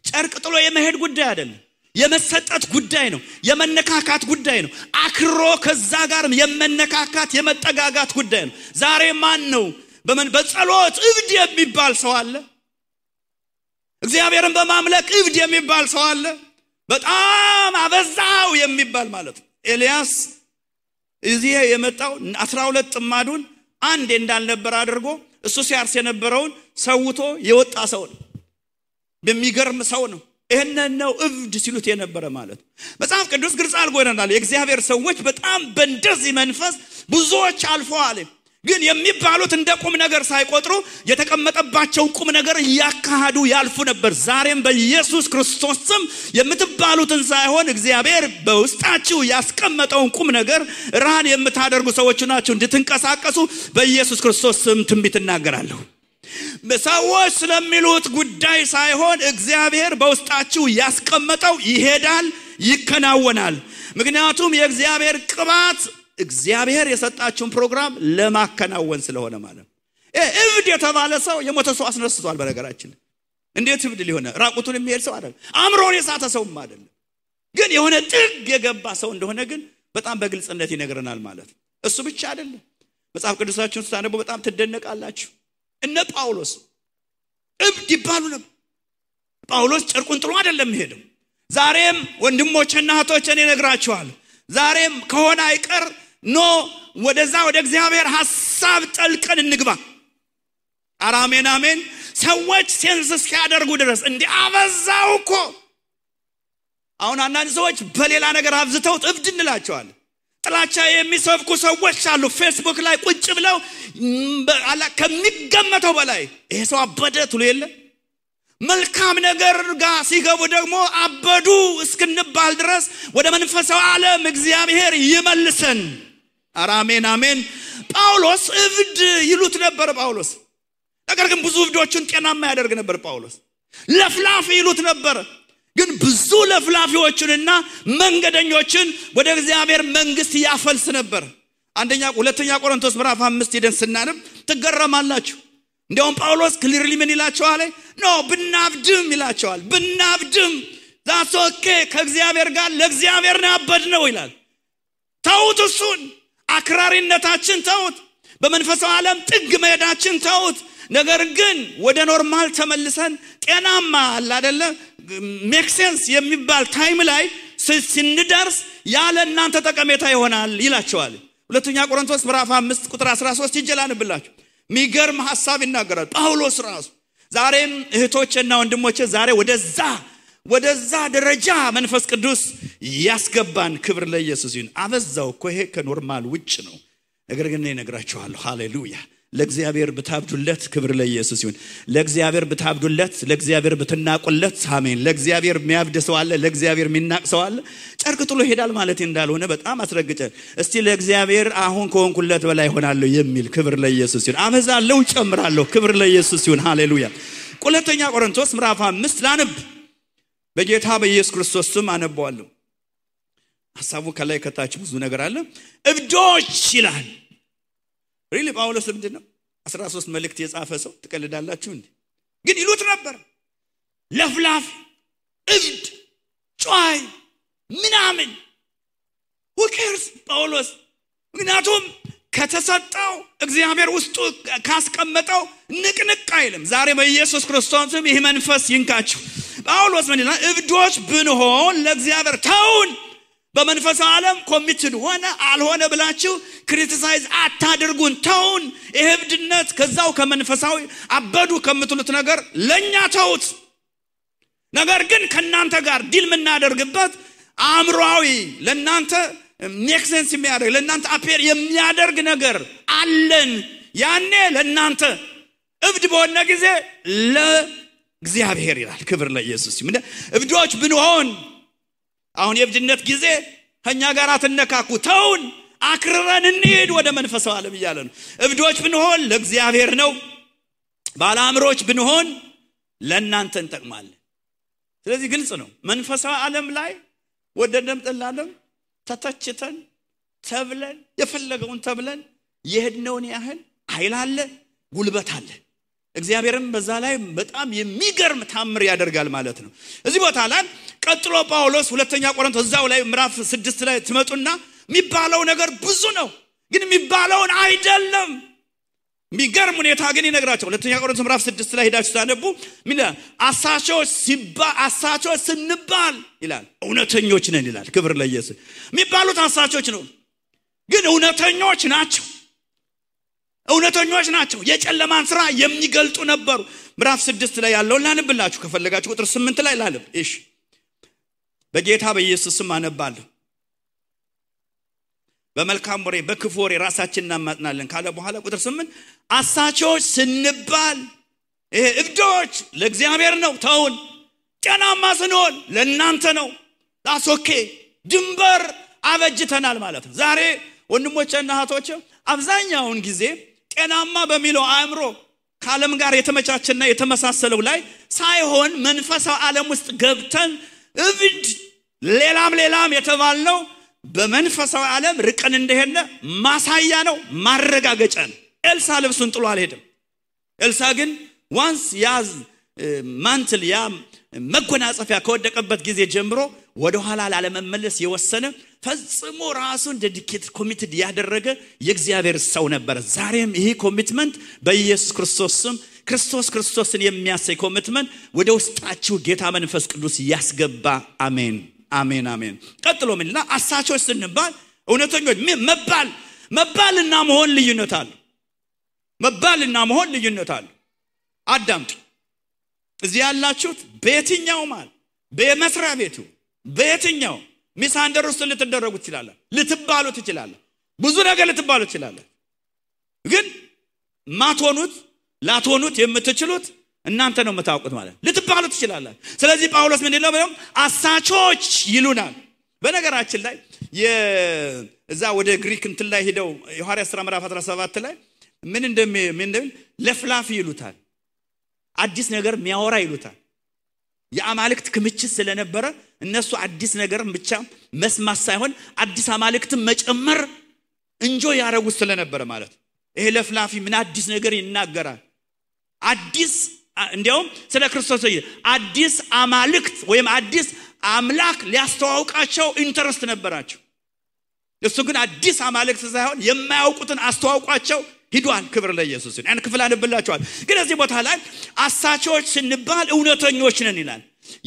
ጨርቅ ጥሎ የመሄድ ጉዳይ አይደለም የመሰጠት ጉዳይ ነው የመነካካት ጉዳይ ነው አክሮ ከዛ ጋር የመነካካት የመጠጋጋት ጉዳይ ነው ዛሬ ማን ነው በጸሎት እብድ የሚባል ሰው አለ እግዚአብሔርን በማምለክ እብድ የሚባል ሰው አለ በጣም አበዛው የሚባል ማለት ነው ኤልያስ እዚህ የመጣው 12 ጥማዱን አንድ እንዳልነበር አድርጎ እሱ ሲያርስ የነበረውን ሰውቶ የወጣ ሰው ነው በሚገርም ሰው ነው ይሄንን ነው እብድ ሲሉት የነበረ ማለት መጽሐፍ ቅዱስ ግልጽ አልጎናል የእግዚአብሔር ሰዎች በጣም በእንደዚህ መንፈስ ብዙዎች አልፈዋል ግን የሚባሉት እንደ ቁም ነገር ሳይቆጥሩ የተቀመጠባቸው ቁም ነገር ያካሃዱ ያልፉ ነበር ዛሬም በኢየሱስ ክርስቶስ ስም የምትባሉትን ሳይሆን እግዚአብሔር በውስጣችሁ ያስቀመጠውን ቁም ነገር ራን የምታደርጉ ሰዎች ናችሁ እንድትንቀሳቀሱ በኢየሱስ ክርስቶስ ስም ትንቢት እናገራለሁ ሰዎች ስለሚሉት ጉዳይ ሳይሆን እግዚአብሔር በውስጣችሁ ያስቀመጠው ይሄዳል ይከናወናል ምክንያቱም የእግዚአብሔር ቅባት እግዚአብሔር የሰጣችሁን ፕሮግራም ለማከናወን ስለሆነ ማለት እብድ የተባለ ሰው የሞተ ሰው አስነስቷል በነገራችን እንዴት እብድ ሊሆን ራቁቱን የሚሄድ ሰው አይደለም አምሮን የሳተ ሰውም አይደለም ግን የሆነ ጥግ የገባ ሰው እንደሆነ ግን በጣም በግልጽነት ይነግረናል ማለት እሱ ብቻ አይደለም መጽሐፍ ቅዱሳችሁን ስታነቡ በጣም ትደነቃላችሁ እነ ጳውሎስ እብድ ይባሉ ነበር ጳውሎስ ጨርቁን ጥሎ አይደለም ሄደው ዛሬም ወንድሞችና እህቶች እኔ ነግራችኋለሁ ዛሬም ከሆነ አይቀር ኖ ወደዛ ወደ እግዚአብሔር ሐሳብ ጠልቀን እንግባ አራሜን አሜን ሰዎች ሴንስ እስኪያደርጉ ድረስ እንዴ አበዛው እኮ አሁን አንዳንድ ሰዎች በሌላ ነገር አብዝተው እብድ እንላቸዋለን ጥላቻ የሚሰብኩ ሰዎች አሉ ፌስቡክ ላይ ቁጭ ብለው ከሚገመተው በላይ ይሄ ሰው አበደ ትሉ የለ መልካም ነገር ጋር ሲገቡ ደግሞ አበዱ እስክንባል ድረስ ወደ መንፈሳዊ ዓለም እግዚአብሔር ይመልሰን አራሜን አሜን ጳውሎስ እብድ ይሉት ነበር ጳውሎስ ነገር ግን ብዙ እብዶችን ጤናማ ያደርግ ነበር ጳውሎስ ለፍላፊ ይሉት ነበር ግን ብዙ ለፍላፊዎችንና መንገደኞችን ወደ እግዚአብሔር መንግስት ያፈልስ ነበር ሁለተኛ ቆሮንቶስ ምዕራፍ 5 ሄደን ስናነብ ትገረማላችሁ እንደውም ጳውሎስ ክሊርሊ ምን ይላቸዋል ኖ ብናብድም ይላቸዋል ብናብድም that's okay ከእግዚአብሔር ጋር ለእግዚአብሔር ነው ያበድነው ይላል ተውት እሱን አክራሪነታችን ተውት በመንፈሳዊ ዓለም ጥግ መሄዳችን ተውት ነገር ግን ወደ ኖርማል ተመልሰን ጤናማ አለ አይደለ ሜክ ሴንስ የሚባል ታይም ላይ ስንደርስ ያለ እናንተ ተቀሜታ ይሆናል ይላቸዋል ሁለተኛ ቆሮንቶስ ምዕራፍ 5 ቁጥር 13 ይጀላንብላችሁ ሚገርም ሐሳብ ይናገራል ጳውሎስ ራሱ ዛሬም እህቶችና ወንድሞቼ ዛሬ ወደዛ ደረጃ መንፈስ ቅዱስ ያስገባን ክብር ለኢየሱስ ይሁን አበዛው እኮ ይሄ ከኖርማል ውጭ ነው ነገር ግን እኔ ነግራችኋለሁ ሃሌሉያ ለእግዚአብሔር ብታብዱለት ክብር ለኢየሱስ ይሁን ለእግዚአብሔር ብታብዱለት ለእግዚአብሔር ብትናቁለት አሜን ለእግዚአብሔር የሚያብደሰው አለ ለእግዚአብሔር የሚናቅሰው አለ ጨርቅ ጥሎ ሄዳል ማለት እንዳልሆነ በጣም አስረግጠ እስቲ ለእግዚአብሔር አሁን ከሆንኩለት በላይ ሆናለሁ የሚል ክብር ለኢየሱስ ይሁን አበዛለሁ ጨምራለሁ ክብር ለኢየሱስ ይሁን ሃሌሉያ ሁለተኛ ቆሮንቶስ ምዕራፍ 5 ላንብ በጌታ በኢየሱስ ክርስቶስ ስም አነባዋለሁ ሐሳቡ ከላይ ከታች ብዙ ነገር አለ እብዶች ይላል ሪሊ ጳውሎስ ምንድነው 13 መልእክት የጻፈ ሰው ትቀልዳላችሁ እንዴ? ግን ይሉት ነበር ለፍላፍ እብድ ጫይ ምናምን who cares ጳውሎስ ምክንያቱም ከተሰጠው እግዚአብሔር ውስጡ ካስቀመጠው ንቅንቅ አይልም። ዛሬ በኢየሱስ ክርስቶስም ይሄ መንፈስ ይንካችሁ። ጳውሎስ ምን ይላል? እብዶች ብንሆን ለእግዚአብሔር ተውን። በመንፈሳዊ ዓለም ኮሚትድ ሆነ አልሆነ ብላችሁ ክሪቲሳይዝ አታድርጉን፣ ተውን። ይሄ እብድነት ከዛው ከመንፈሳዊ አበዱ ከምትሉት ነገር ለኛ ተውት። ነገር ግን ከናንተ ጋር ዲል ምናደርግበት አእምሮአዊ ለናንተ ሜክ ሴንስ የሚያደርግ ለናንተ አፔር የሚያደርግ ነገር አለን። ያኔ ለናንተ እብድ በሆነ ጊዜ ለእግዚአብሔር ይላል። ክብር ለኢየሱስ ይሁን። እብዶች ብንሆን አሁን የእብድነት ጊዜ ከኛ ጋር አትነካኩ፣ ተውን፣ አክርረን እንሂድ ወደ መንፈሳዊ ዓለም እያለ ነው። እብዶች ብንሆን ለእግዚአብሔር ነው፣ ባለአእምሮች ብንሆን ለናንተ እንጠቅማለን። ስለዚህ ግልጽ ነው። መንፈሳዊ ዓለም ላይ ወደደም ጠላለም ተተችተን ተብለን የፈለገውን ተብለን የሄድነውን ያህል ኃይል አለ፣ ጉልበት አለ። እግዚአብሔርም በዛ ላይ በጣም የሚገርም ታምር ያደርጋል ማለት ነው። እዚህ ቦታ ላይ ቀጥሎ ጳውሎስ ሁለተኛ ቆሮንቶስ እዛው ላይ ምዕራፍ 6 ላይ ትመጡና የሚባለው ነገር ብዙ ነው፣ ግን የሚባለውን አይደለም። የሚገርም ሁኔታ ግን ይነግራቸው። ሁለተኛ ቆሮንቶስ ምዕራፍ 6 ላይ ሄዳችሁ ታነቡ ምን አሳቾች ስንባል ይላል እውነተኞች ነን ይላል። ክብር ለኢየሱስ። የሚባሉት አሳቾች ነው፣ ግን እውነተኞች ናቸው። እውነተኞች ናቸው። የጨለማን ስራ የሚገልጡ ነበሩ። ምዕራፍ 6 ላይ ያለውን ላንብላችሁ ከፈለጋችሁ ቁጥር 8 ላይ ላንብ። እሺ በጌታ በኢየሱስ ስም አነባለሁ። በመልካም ወሬ በክፉ ወሬ ራሳችንን እናማጥናለን ካለ በኋላ ቁጥር 8 አሳቾች ስንባል ይሄ እብዶች ለእግዚአብሔር ነው፣ ተውን። ጤናማ ስንሆን ለእናንተ ነው፣ ዳሶኬ ድንበር አበጅተናል ማለት ነው። ዛሬ ወንድሞቼና እህቶቼ አብዛኛውን ጊዜ ጤናማ በሚለው አእምሮ ከዓለም ጋር የተመቻቸና የተመሳሰለው ላይ ሳይሆን መንፈሳዊ ዓለም ውስጥ ገብተን እብድ ሌላም የተባልነው በመንፈሳዊ ዓለም ርቀን እንደሄነ ማሳያ ነው፣ ማረጋገጫ ነው። ኤልሳ ልብሱን ጥሎ አልሄደም። ኤልሳ ግን ዋንስ ያዝ ማንትል ያ መጎናጸፊያ ከወደቀበት ጊዜ ጀምሮ ወደ ኋላ ላለመመለስ የወሰነ ፈጽሞ ራሱን ዴዲኬት ኮሚትድ ያደረገ የእግዚአብሔር ሰው ነበር። ዛሬም ይሄ ኮሚትመንት በኢየሱስ ክርስቶስ ስም ክርስቶስን የሚያሳይ ኮሚትመንት ወደ ውስጣችሁ ጌታ መንፈስ ቅዱስ ያስገባ። አሜን አሜን አሜን። ቀጥሎ ምንላ አሳቾች ስንባል እውነተኞች መባልና መሆን ልዩነት አለ። መባልና መሆን ልዩነት አለ። አዳምጡ። እዚህ ያላችሁት በየትኛው ማለት በመስሪያ ቤቱ በየትኛው ሚሳንደር ውስጥ ልትደረጉ ትችላላችሁ፣ ልትባሉ ትችላላችሁ፣ ብዙ ነገር ልትባሉ ትችላላችሁ። ግን ማትሆኑት ላትሆኑት የምትችሉት እናንተ ነው የምታውቁት ማለት ልትባሉ ትችላላችሁ። ስለዚህ ጳውሎስ ምን ይላል? አሳቾች ይሉናል። በነገራችን ላይ የዛ ወደ ግሪክ እንትን ላይ ሄደው የሐዋርያት ሥራ ምዕራፍ 17 ላይ ምን እንደሚል ለፍላፊ ይሉታል፣ አዲስ ነገር የሚያወራ ይሉታል። የአማልክት ክምችት ስለነበረ እነሱ አዲስ ነገር ብቻ መስማት ሳይሆን አዲስ አማልክትን መጨመር እንጆይ ያረጉ ስለነበረ ማለት ይሄ ለፍላፊ ምን አዲስ ነገር ይናገራል? አዲስ እንዲያውም ስለ ክርስቶስ አዲስ አማልክት ወይም አዲስ አምላክ ሊያስተዋውቃቸው ኢንተረስት ነበራቸው። እሱ ግን አዲስ አማልክት ሳይሆን የማያውቁትን አስተዋውቋቸው ሂዷል። ክብር ለኢየሱስ ይሁን። ያን ክፍል አንብላችኋል። ግን እዚህ ቦታ ላይ አሳቾች ስንባል እውነተኞች ነን ይላል።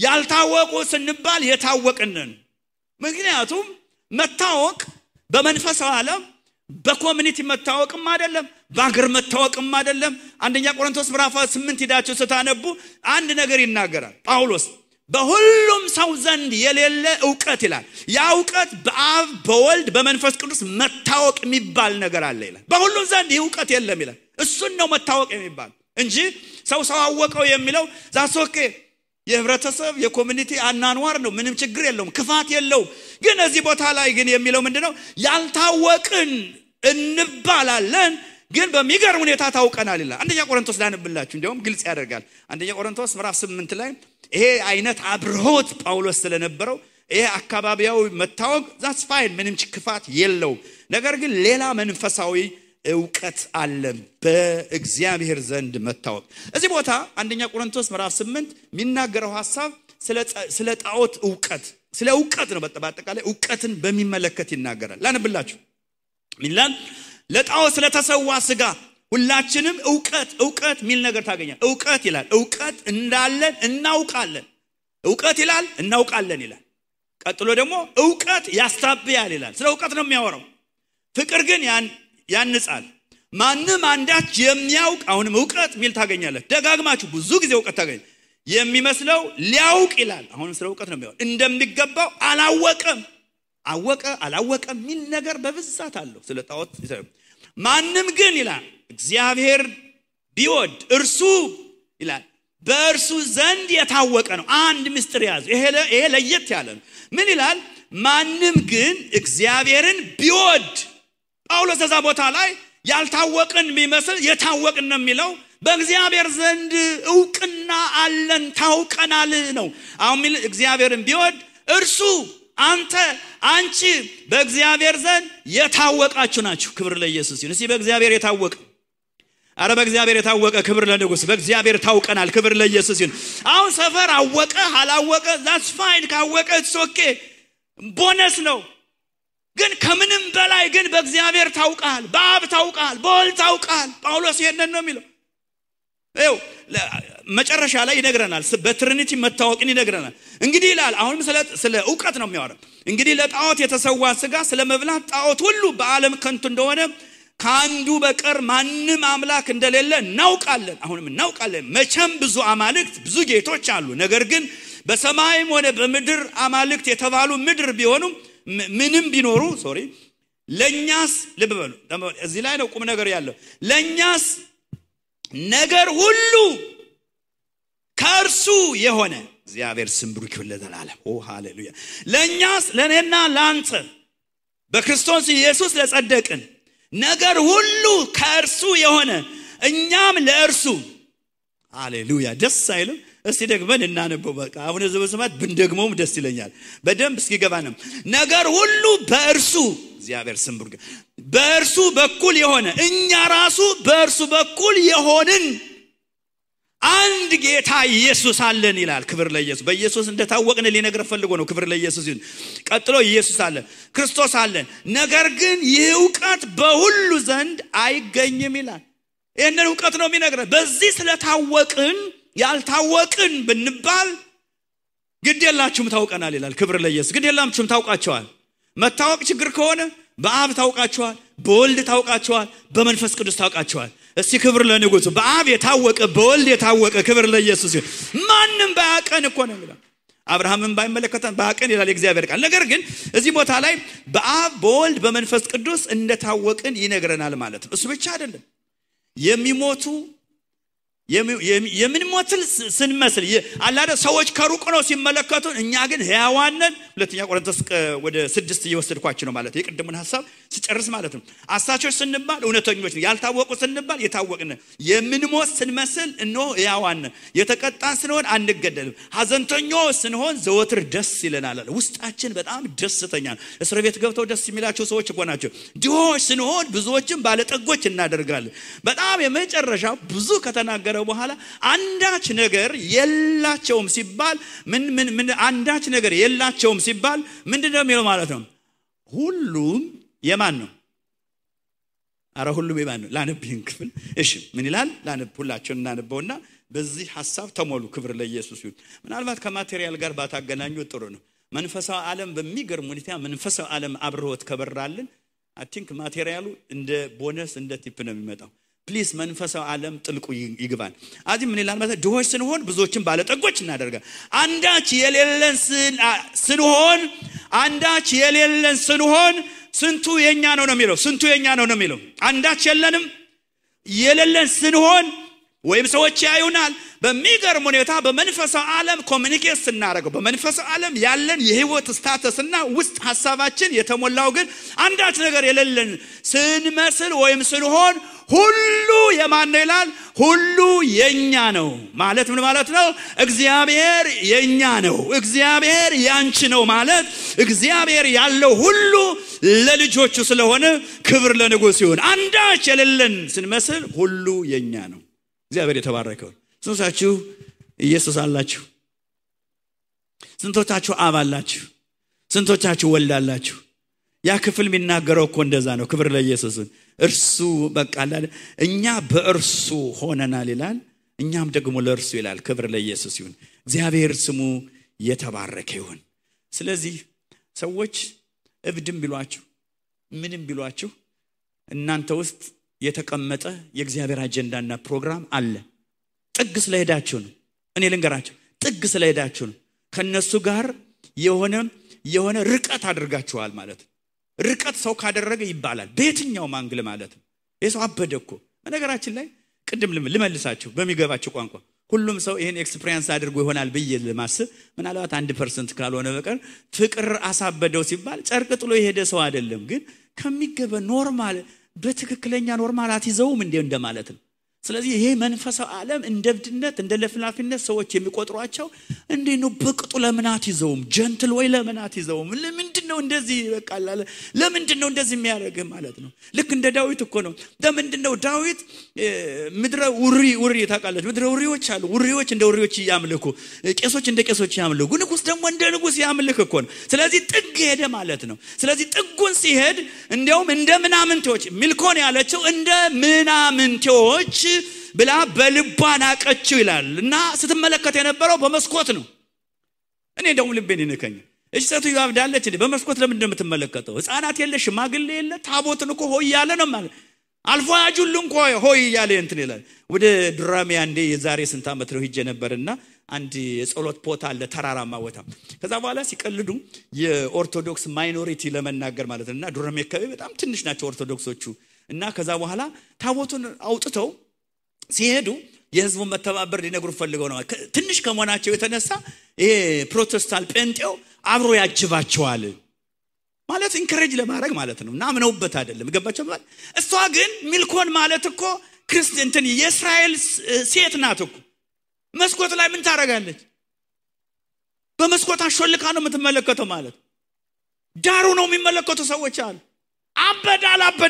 ያልታወቁ ስንባል የታወቅን ነን። ምክንያቱም መታወቅ በመንፈሳዊ ዓለም በኮሚኒቲ መታወቅም አይደለም፣ በአገር መታወቅም አይደለም። አንደኛ ቆሮንቶስ ምዕራፍ 8 ሄዳችሁ ስታነቡ አንድ ነገር ይናገራል ጳውሎስ። በሁሉም ሰው ዘንድ የሌለ ዕውቀት ይላል። ያ ዕውቀት በአብ በወልድ በመንፈስ ቅዱስ መታወቅ የሚባል ነገር አለ ይላል። በሁሉም ዘንድ ዕውቀት የለም ይላል። እሱን ነው መታወቅ የሚባል እንጂ ሰው አወቀው የሚለው ዛሶኬ የህብረተሰብ የኮሚኒቲ አናንዋር ነው፣ ምንም ችግር የለውም፣ ክፋት የለውም። ግን እዚህ ቦታ ላይ ግን የሚለው ምንድነው? ያልታወቅን እንባላለን ግን በሚገርም ሁኔታ ታውቀናል ይላል። አንደኛ ቆሮንቶስ ላንብላችሁ እንዲያውም ግልጽ ያደርጋል። አንደኛ ቆሮንቶስ ምዕራፍ 8 ላይ ይሄ አይነት አብሮት ጳውሎስ ስለነበረው ይሄ አካባቢያው መታወቅ ዛትስ ፋይን፣ ምንም ክፋት የለው። ነገር ግን ሌላ መንፈሳዊ ዕውቀት አለ በእግዚአብሔር ዘንድ መታወቅ። እዚህ ቦታ አንደኛ ቆሮንቶስ ምዕራፍ 8 የሚናገረው ሐሳብ ስለ ጣዖት ዕውቀት ስለ ዕውቀት ነው። በአጠቃላይ ዕውቀትን በሚመለከት ይናገራል። ላንብላችሁ ሚላን ለጣዖት ስለተሰዋ ሥጋ ሁላችንም ዕውቀት ሚል ነገር ታገኛል። ዕውቀት ይላል ዕውቀት እንዳለን እናውቃለን። ዕውቀት ይላል እናውቃለን ይላል። ቀጥሎ ደግሞ ዕውቀት ያስታብያል ይላል። ስለ ዕውቀት ነው የሚያወራው። ፍቅር ግን ያንጻል። ማንም አንዳች የሚያውቅ አሁንም ዕውቀት ሚል ታገኛለህ። ደጋግማችሁ ብዙ ጊዜ ዕውቀት ታገኝ የሚመስለው ሊያውቅ ይላል። አሁንም ስለ ዕውቀት ነው የሚያወራው። እንደሚገባው አላወቀም ሚል ነገር በብዛት አለው ስለ ጣዖት። ማንም ግን ይላል እግዚአብሔር ቢወድ እርሱ ይላል በእርሱ ዘንድ የታወቀ ነው። አንድ ምስጢር ያዙ። ይሄ ለየት ያለ ነው። ምን ይላል? ማንም ግን እግዚአብሔርን ቢወድ። ጳውሎስ እዛ ቦታ ላይ ያልታወቅን ቢመስል የታወቅን ነው የሚለው። በእግዚአብሔር ዘንድ ዕውቅና አለን ታውቀናል ነው። አሁን እግዚአብሔርን ቢወድ እርሱ አንቺ በእግዚአብሔር ዘንድ የታወቃችሁ ናችሁ። ክብር ለኢየሱስ ይሁን። እስቲ በእግዚአብሔር የታወቀ በእግዚአብሔር የታወቀ ክብር ለንጉስ። በእግዚአብሔር ታውቀናል። ክብር ለኢየሱስ ይሁን። አሁን ሰፈር አወቀ አላወቀ that's fine። ካወቀ it's okay ቦነስ ነው። ግን ከምንም በላይ ግን በእግዚአብሔር ታውቃል፣ በአብ ታውቃል፣ በወልድ ታውቃል። ጳውሎስ ይሄንን ነው የሚለው። መጨረሻ ላይ ይነግረናል። በትሪኒቲ መታወቅን ይነግረናል። እንግዲህ ይላል አሁንም ስለ ዕውቀት ነው የሚያወራው። እንግዲህ ለጣዖት የተሰዋ ሥጋ ስለመብላት ጣዖት ሁሉ በዓለም ከንቱ እንደሆነ ከአንዱ በቀር ማንም አምላክ እንደሌለ እናውቃለን። አሁንም እናውቃለን። መቼም ብዙ አማልክት ብዙ ጌቶች አሉ። ነገር ግን በሰማይም ሆነ በምድር አማልክት የተባሉ ምድር ቢሆኑ ምንም ቢኖሩ ለኛስ ልብ በሉ። እዚህ ላይ ነው ቁም ነገር ያለው። ለኛስ ነገር ሁሉ ከእርሱ የሆነ እግዚአብሔር ስም ብሩክ ይሁን ለዘላለም። ሃሌሉያ። ለኛስ ለኔና ላንተ በክርስቶስ ኢየሱስ ለጸደቅን ነገር ሁሉ ከእርሱ የሆነ እኛም ለእርሱ ሃሌሉያ። ደስ አይልም? እስቲ ደግመን እናነበው። በቃ አሁን ዘበሰማት ብንደግመውም ደስ ይለኛል። በደንብ እስኪገባንም ነገር ሁሉ በእርሱ እግዚአብሔር ስም ብሩክ በእርሱ በኩል የሆነ እኛ ራሱ በእርሱ በኩል የሆንን አንድ ጌታ ኢየሱስ አለን ይላል። ክብር ለኢየሱስ። በኢየሱስ እንደታወቅን ሊነግር ፈልጎ ነው። ክብር ለኢየሱስ ይሁን። ቀጥሎ ኢየሱስ አለ፣ ክርስቶስ አለን። ነገር ግን ይህ ዕውቀት በሁሉ ዘንድ አይገኝም ይላል። ይሄንን ዕውቀት ነው የሚነግረን። በዚህ ስለታወቅን ያልታወቅን ብንባል ግድ የላችሁም ታውቀናል ይላል። ክብር ለኢየሱስ። ግድ የላችሁም ታውቃቸዋል። መታወቅ ችግር ከሆነ በአብ ታውቃቸዋል፣ በወልድ ታውቃቸዋል፣ በመንፈስ ቅዱስ ታውቃቸዋል። እስቲ ክብር ለንጉሱ። በአብ የታወቀ በወልድ የታወቀ ክብር ለኢየሱስ ይሁን። ማንም ባያቀን እኮ ነው የሚለው። አብርሃምን ባይመለከተን ባያቀን ይላል እግዚአብሔር ቃል። ነገር ግን እዚህ ቦታ ላይ በአብ በወልድ በመንፈስ ቅዱስ እንደታወቅን ይነግረናል ማለት ነው። እሱ ብቻ አይደለም። የሚሞቱ የምንሞትል ስንመስል አላደ ሰዎች ከሩቅ ነው ሲመለከቱን፣ እኛ ግን ሕያዋን ነን። ሁለተኛ ቆሮንቶስ ወደ 6 እየወሰድኳችሁ ነው ማለት የቅድሙን ሐሳብ ሲጨርስ ማለት ነው። አሳቾች ስንባል እውነተኞች ነን፣ ያልታወቁ ስንባል የታወቅን፣ የምንሞት ስንመስል እነሆ ሕያዋን ነን። የተቀጣን ስንሆን አንገደልም፣ ሐዘንተኞች ስንሆን ዘወትር ደስ ይለናል። ውስጣችን በጣም ደስተኛ ነው። እስር ቤት ገብተው ደስ የሚላቸው ሰዎች እኮ ናቸው። ድሆች ስንሆን ብዙዎችን ባለጠጎች እናደርጋለን። በጣም የመጨረሻ ብዙ ከተናገረ በኋላ አንዳች ነገር የላቸውም ሲባል ምን አንዳች ነገር የላቸውም ሲባል ምንድነው የሚለው ማለት ነው? ሁሉም የማን ነው? ሁሉም የማን ነው? ላነብህን ክፍል እሺ ምን ይላል? ላነብ ሁላችሁን እናነበውና በዚህ ሐሳብ ተሞሉ። ክብር ለኢየሱስ ይሁን። ምናልባት ከማቴሪያል ጋር ባታገናኙ ጥሩ ነው። መንፈሳዊ ዓለም በሚገርም ሁኔታ መንፈሳዊ ዓለም አብሮት ከበራልን አይ ቲንክ ማቴሪያሉ እንደ ቦነስ እንደ ቲፕ ነው የሚመጣው። ፕሊስ መንፈሳዊ ዓለም ጥልቁ ይግባን። አዚ ምን ይላል ማለት ድሆች ስንሆን ብዙዎችን ባለጠጎች እናደርጋለን። አንዳች የሌለን ስንሆን ስንቱ የኛ ነው የሚለው። ስንቱ የኛ ነው የሚለው። አንዳች የሌለን ስንሆን ወይም ሰዎች ያዩናል። በሚገርም ሁኔታ በመንፈሳዊ ዓለም ኮሚኒኬት ስናደርገው በመንፈሳዊ ዓለም ያለን የህይወት ስታተስና ውስጥ ሐሳባችን የተሞላው ግን አንዳች ነገር የሌለን ስንመስል ወይም ስንሆን ሁሉ የማን ነው ይላል? ሁሉ የኛ ነው ማለት ምን ማለት ነው? እግዚአብሔር የኛ ነው፣ እግዚአብሔር ያንቺ ነው ማለት እግዚአብሔር ያለው ሁሉ ለልጆቹ ስለሆነ ክብር ለንጉሥ ይሁን። አንዳች የሌለን ስንመስል ሁሉ የኛ ነው። እግዚአብሔር የተባረከው። ስንቶቻችሁ ኢየሱስ አላችሁ? ስንቶቻችሁ አብ አላችሁ? ስንቶቻችሁ ወልድ አላችሁ? ያ ክፍል የሚናገረው እኮ እንደዛ ነው። ክብር ለኢየሱስ። እርሱ በቃ እኛ በእርሱ ሆነናል ይላል፣ እኛም ደግሞ ለእርሱ ይላል። ክብር ለኢየሱስ ይሁን። እግዚአብሔር ስሙ የተባረከ ይሁን። ስለዚህ ሰዎች እብድም ቢሏችሁ ምንም ቢሏችሁ እናንተ ውስጥ የተቀመጠ የእግዚአብሔር አጀንዳና ፕሮግራም አለ። ጥግ ስለሄዳችሁ ነው። እኔ ልንገራችሁ፣ ጥግ ስለሄዳችሁ ነው። ከነሱ ጋር የሆነ ርቀት አድርጋችኋል ማለት ነው። ርቀት ሰው ካደረገ ይባላል በየትኛው ማንግል ማለት ነው። የሰው አበደ እኮ። በነገራችን ላይ ቅድም ልመልሳችሁ በሚገባችሁ ቋንቋ ሁሉም ሰው ይሄን ኤክስፒሪየንስ አድርጎ ይሆናል ብዬ ለማስብ ምናልባት 1% ካልሆነ በቀር ፍቅር አሳበደው ሲባል ጨርቅ ጥሎ የሄደ ሰው አይደለም። ግን ከሚገበ ኖርማል በትክክለኛ ኖርማል አትይዘውም እንደማለት ነው። ስለዚህ ይሄ መንፈሳዊ ዓለም እንደብድነት እንደለፍላፊነት ሰዎች የሚቆጥሯቸው እንዴ ነው። በቅጡ ለምናት ይዘውም ጀንትል ወይ ለምናት ይዘውም ለምንድነው እንደዚህ በቃላ ለምንድነው እንደዚህ የሚያደርግ ማለት ነው። ልክ እንደ ዳዊት እኮ ነው። ለምንድነው ዳዊት ምድረ ውሪ ታውቃለች። ምድረ ውሪዎች አሉ። ውሪዎች እንደ ውሪዎች ያምልኩ፣ ቄሶች እንደ ቄሶች ያምልኩ፣ ንጉስ ደግሞ እንደ ንጉስ ያምልክ እኮ ነው። ስለዚህ ጥግ ሄደ ማለት ነው። ስለዚህ ጥጉን ሲሄድ እንዲያውም እንደ ምናምንቴዎች ሚልኮን ያለችው እንደ ምናምንቴዎች ብላ በልቧ ናቀችው ይላል። እና ስትመለከት የነበረው በመስኮት ነው። እኔ ደግሞ ልቤን ይነከኝ። እሺ ሴትዮ አብዳለች እንዴ? በመስኮት ለምን እንደምትመለከተው? ህፃናት የለ ሽማግሌ የለ ታቦትን እኮ ሆይ ያለ ነው ማለት አልፎ ያጁሉ እንኳ ሆይ ያለ እንትን ይላል። ወደ ዱራሜ አንዴ የዛሬ ስንት ዓመት ነው ሄጄ ነበርና አንድ የጸሎት ቦታ አለ ተራራማ ቦታ። ከዛ በኋላ ሲቀልዱ የኦርቶዶክስ ማይኖሪቲ ለመናገር ማለት ነውና ዱራሜ አካባቢ በጣም ትንሽ ናቸው ኦርቶዶክሶቹ። እና ከዛ በኋላ ታቦቱን አውጥተው ሲሄዱ የህዝቡን መተባበር ሊነግሩ ፈልገው ነው። ትንሽ ከመሆናቸው የተነሳ ይሄ ፕሮቴስታንት ጴንጤው አብሮ ያጅባቸዋል ማለት ኢንከሬጅ ለማድረግ ማለት ነው። እና ምነውበት አይደለም ገባቸው ማለት። እሷ ግን ሚልኮን ማለት እኮ ክርስቲያንትን የእስራኤል ሴት ናት እኮ። መስኮት ላይ ምን ታረጋለች? በመስኮት አሾልካ ነው የምትመለከተው ማለት። ዳሩ ነው የሚመለከቱ ሰዎች አሉ። አበደ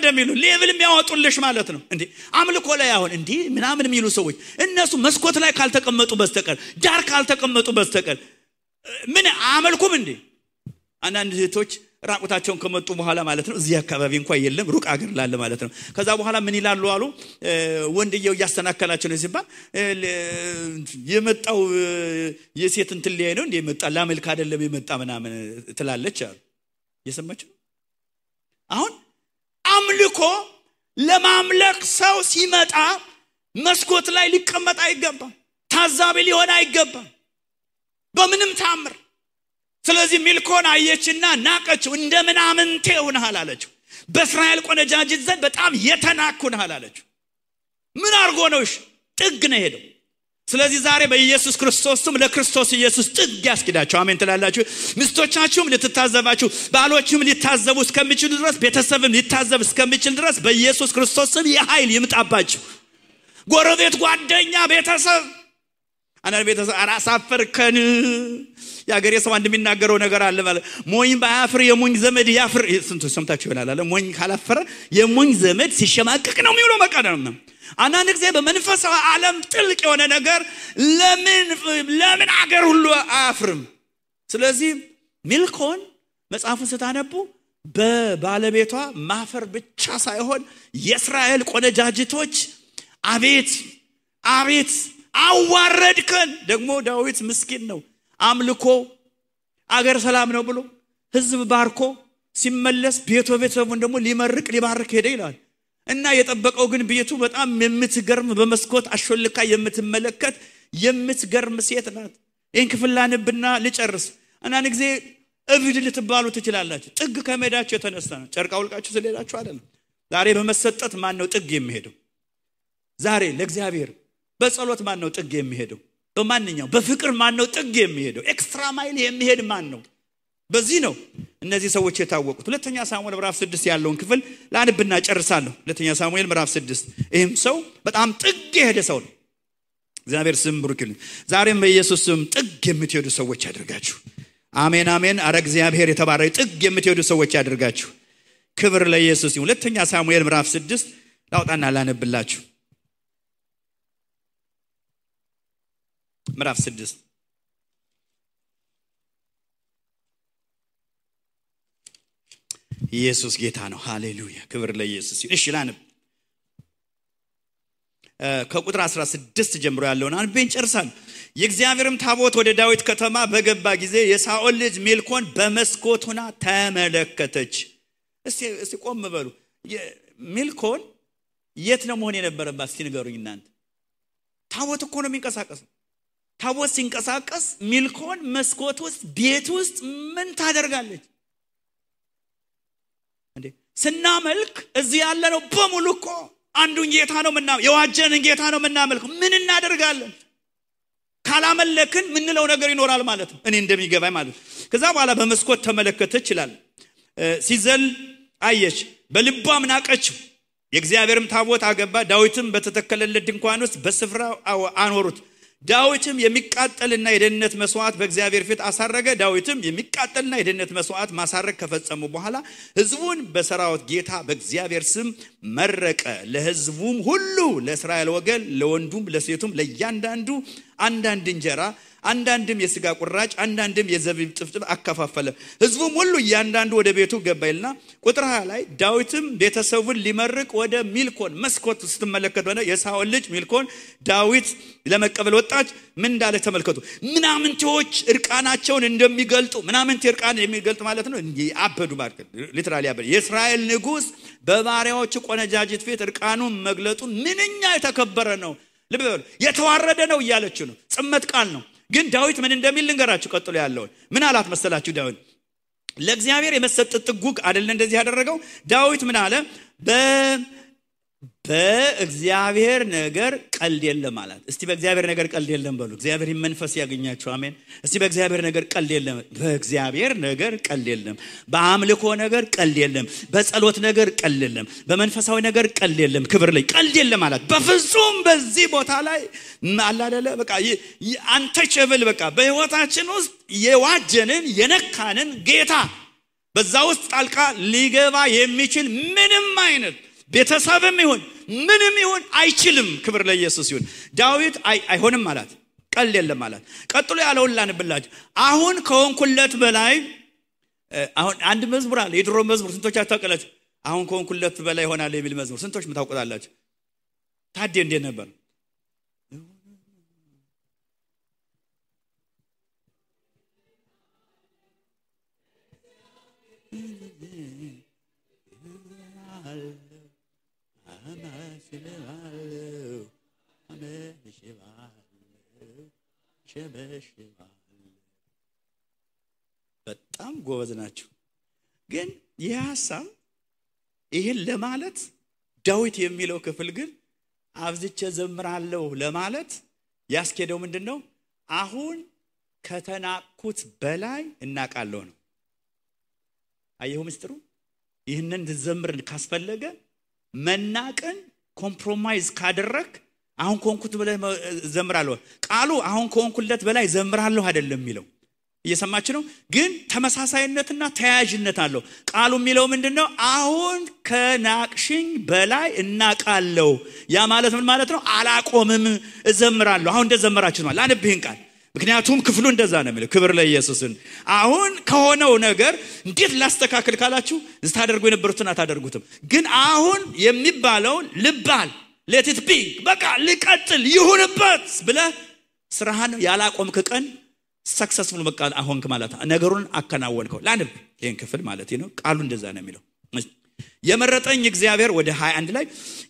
የሚሉ ሌቭል የሚያወጡልሽ ማለት ነው። እንዴ አምልኮ ላይ አሁን እንዴ ምናምን የሚሉ ሰዎች እነሱ መስኮት ላይ ካልተቀመጡ በስተቀር ዳር ካልተቀመጡ በስተቀር ምን አመልኩም እንዴ? አንዳንድ እህቶች ራቁታቸውን ከመጡ በኋላ ማለት ነው እዚህ አካባቢ እንኳን የለም ሩቅ አገር ላለ ማለት ነው። ከዛ በኋላ ምን ይላሉ አሉ ወንድየው ያስተናከላቸው ነው ሲባል የመጣው የሴት እንትን ላይ ነው እንዴ የመጣ ላመልክ አይደለም የመጣ ምናምን ትላለች አሉ። እየሰማችሁ አሁን አምልኮ ለማምለክ ሰው ሲመጣ መስኮት ላይ ሊቀመጥ አይገባም። ታዛቢ ሊሆን አይገባም በምንም ታምር። ስለዚህ ሚልኮን አየችና ናቀችው። እንደምናምንቴ ሆነሃል አለችው። በእስራኤል ቆነጃጅት ዘንድ በጣም የተናኩንሃል አለችው። ምን አርጎ ነውሽ? ጥግ ነው ሄደው። ስለዚህ ዛሬ በኢየሱስ ክርስቶስም ለክርስቶስ ኢየሱስ ጥግ ያስኪዳችሁ። አሜን ትላላችሁ። ሚስቶቻችሁም ልትታዘባችሁ፣ ባሎችም ሊታዘቡ እስከሚችሉ ድረስ፣ ቤተሰብም ሊታዘብ እስከሚችል ድረስ በኢየሱስ ክርስቶስም የኃይል ይምጣባችሁ። ጎረቤት፣ ጓደኛ፣ ቤተሰብ አናን ቤተሰብ አራሳፈርከን ያገሬ ሰው እንደሚናገረው ነገር አለ ማለት ሞኝ ባያፍር የሞኝ ዘመድ ያፍር። ስንቱ ሰምታችሁ ይሆናል አለ ሞኝ ካላፈረ የሞኝ ዘመድ ሲሸማቀቅ ነው የሚውለው መቃደም ነው። አንዳንድ ጊዜ በመንፈሳዊ ዓለም ጥልቅ የሆነ ነገር ለምን አገር ሁሉ አያፍርም። ስለዚህ ሚልኮን መጽሐፉን ስታነቡ በባለቤቷ ማፈር ብቻ ሳይሆን የእስራኤል ቆነጃጅቶች አቤት አዋረድከን። ደግሞ ዳዊት ምስኪን ነው። አምልኮ አገር ሰላም ነው ብሎ ህዝብ ባርኮ ሲመለስ ቤተሰቡን ደግሞ ሊባርክ ሄደ ይላል። እና የጠበቀው ግን ቤቱ በጣም የምትገርም በመስኮት አሾልካ የምትመለከት የምትገርም ሴት ናት። ይሄን ክፍል ላንብና ልጨርስ። አንዳንድ ጊዜ እብድ ልትባሉ ትችላላችሁ። ጥግ ከመሄዳችሁ የተነሳ ነው። ጨርቃ አውልቃችሁ ስለሄዳችሁ አይደለም። ዛሬ በመሰጠት ማን ነው ጥግ የሚሄደው? ዛሬ ለእግዚአብሔር በጸሎት ማን ነው ጥግ የሚሄደው? በማንኛው በፍቅር ማን ነው ጥግ የሚሄደው? ኤክስትራ ማይል የሚሄድ ማን ነው? በዚህ ነው እነዚህ ሰዎች የታወቁት። ሁለተኛ ሳሙኤል ምዕራፍ 6 ያለውን ክፍል ላንብና ጨርሳለሁ። ሁለተኛ ሳሙኤል ምዕራፍ 6 ይህም ሰው በጣም ጥግ የሄደ ሰው ነው። እግዚአብሔር ስም ብሩክ ይሁን። ዛሬም በኢየሱስ ስም ጥግ የምትሄዱ ሰዎች ያድርጋችሁ። አሜን አሜን። አረ እግዚአብሔር የተባረከ ጥግ የምትሄዱ ሰዎች ያድርጋችሁ። ክብር ለኢየሱስ ይሁን። ሁለተኛ ሳሙኤል ምዕራፍ 6 ላውጣና ላነብላችሁ። ምዕራፍ 6 ኢየሱስ ጌታ ነው። ሃሌሉያ ክብር ለኢየሱስ ይሁን። እሺ ላንብ ከቁጥር 16 ጀምሮ ያለውን አንብቤን ጨርሳለሁ። የእግዚአብሔርም ታቦት ወደ ዳዊት ከተማ በገባ ጊዜ የሳኦል ልጅ ሜልኮል በመስኮት ሆና ተመለከተች። እስቲ ቆም በሉ። ሜልኮል የት ነው መሆን የነበረባት? እስቲ ንገሩኝ እናንተ። ታቦት እኮ ነው የሚንቀሳቀሰው። ታቦት ሲንቀሳቀስ ሜልኮል መስኮት ውስጥ ቤት ውስጥ ምን ታደርጋለች እንዴ? ስናመልክ እዚህ ያለ ነው በሙሉ እኮ አንዱን ጌታ ነው የዋጀንን ጌታ ነው የምናመልከው። ምን እናደርጋለን? ካላመለክን ምንለው ነገር ይኖራል ማለት ነው። እኔ እንደሚገባኝ ማለት ነው። ከዛ በኋላ በመስኮት ተመለከተች ይላል። ሲዘል አየች፣ በልቧም ናቀችው። የእግዚአብሔርም ታቦት አገባ። ዳዊትም በተተከለለት ድንኳን ውስጥ በስፍራው አኖሩት። ዳዊትም የሚቃጠልና የደህንነት መስዋዕት በእግዚአብሔር ፊት አሳረገ። ዳዊትም የሚቃጠልና የደህንነት መስዋዕት ማሳረግ ከፈጸሙ በኋላ ሕዝቡን በሰራዊት ጌታ በእግዚአብሔር ስም መረቀ። ለሕዝቡም ሁሉ ለእስራኤል ወገን ለወንዱም ለሴቱም ለእያንዳንዱ አንዳንድ እንጀራ፣ አንዳንድም የሥጋ ቁራጭ፣ አንዳንድም የዘቢብ ጥፍጥፍ አከፋፈለ። ሕዝቡም ሁሉ እያንዳንዱ ወደ ቤቱ ገባይልና ቁጥር 20 ላይ ዳዊትም ቤተሰቡን ሊመርቅ ወደ ሜልኮል መስኮት ስትመለከቱ የሳኦል ልጅ ሜልኮል ዳዊት ለመቀበል ወጣች። ምን እንዳለ ተመልከቱ። ምናምንቴዎች እርቃናቸውን እንደሚገልጡ ምናምንቴ እርቃን የሚገልጥ ማለት ነው አበዱ ማለት ሊትራሊ አበዱ። የእስራኤል ንጉስ በባሪያዎቹ ቆነጃጅት ፊት እርቃኑን መግለጡ ምንኛ የተከበረ ነው፣ ልብ በሉ የተዋረደ ነው እያለች ነው። ጽመት ቃል ነው። ግን ዳዊት ምን እንደሚል ልንገራችሁ። ቀጥሎ ያለው ምን አላት መሰላችሁ? ዳዊት ለእግዚአብሔር የመሰጠት ጥጉግ አይደለ እንደዚህ ያደረገው። ዳዊት ምን አለ? በእግዚአብሔር ነገር ቀልድ የለም አላት። እስቲ በእግዚአብሔር ነገር ቀልድ የለም በሉ። እግዚአብሔር መንፈስ ያገኛችሁ። አሜን። እስቲ በእግዚአብሔር ነገር ቀልድ የለም። በእግዚአብሔር ነገር ቀልድ የለም። በአምልኮ ነገር ቀልድ የለም። በጸሎት ነገር ቀልድ የለም። በመንፈሳዊ ነገር ቀልድ የለም። ክብር ላይ ቀልድ የለም አላት። በፍጹም በዚህ ቦታ ላይ አላደለ በቃ አንተቸብል በቃ በህይወታችን ውስጥ የዋጀንን የነካንን ጌታ በዛ ውስጥ ጣልቃ ሊገባ የሚችል ምንም አይነት ቤተሰብም ይሁን ምንም ይሁን አይችልም። ክብር ለኢየሱስ ይሁን። ዳዊት አይሆንም አላት። ቀልድ የለም አላት። ቀጥሎ ያለውን ላንብላችሁ። አሁን ከሆንኩለት በላይ አሁን አንድ መዝሙር አለ። የድሮ መዝሙር ስንቶች አታውቃላችሁ? አሁን ከሆንኩለት በላይ ይሆናል የሚል መዝሙር ስንቶች ምታውቁታላችሁ? ታዲያ እንዴት ነበር? በጣም ጎበዝ ናቸው። ግን ይህ ሐሳብ ይሄን ለማለት ዳዊት የሚለው ክፍል ግን አብዝቼ ዘምራለሁ ለማለት ያስኬደው ምንድነው? አሁን ከተናቁት በላይ እናቃለሁ ነው። አየሁ ምስጥሩ። ይህንን ዘምር ካስፈለገ መናቀን ኮምፕሮማይዝ ካደረክ አሁን ኮንኩት በላይ ዘምራለሁ። ቃሉ አሁን ኮንኩለት በላይ ዘምራለሁ አይደለም የሚለው። እየሰማችሁ ነው? ግን ተመሳሳይነትና ተያያዥነት አለው። ቃሉ የሚለው ምንድነው? አሁን ከናቅሽኝ በላይ እናቃለሁ። ያ ማለት ምን ማለት ነው? አላቆምም እዘምራለሁ። አሁን እንደዘመራችሁ ነው። ላንብህን ቃል ምክንያቱም ክፍሉ እንደዛ ነው የሚለው። ክብር ለኢየሱስን። አሁን ከሆነው ነገር እንዴት ላስተካክል ካላችሁ ታደርጉ የነበሩትን አታደርጉትም። ግን አሁን የሚባለው ልባል let it be በቃ ልቀጥል ይሁንበት ብለህ ስራህን ያላቆምክ ቀን ሰክሰስፉል በቃ አሁንክ ማለት ነገሩን አከናወንከው። ላንብ ይሄን ክፍል ማለት ነው። ቃሉ እንደዛ ነው የሚለው። የመረጠኝ እግዚአብሔር ወደ 21 ላይ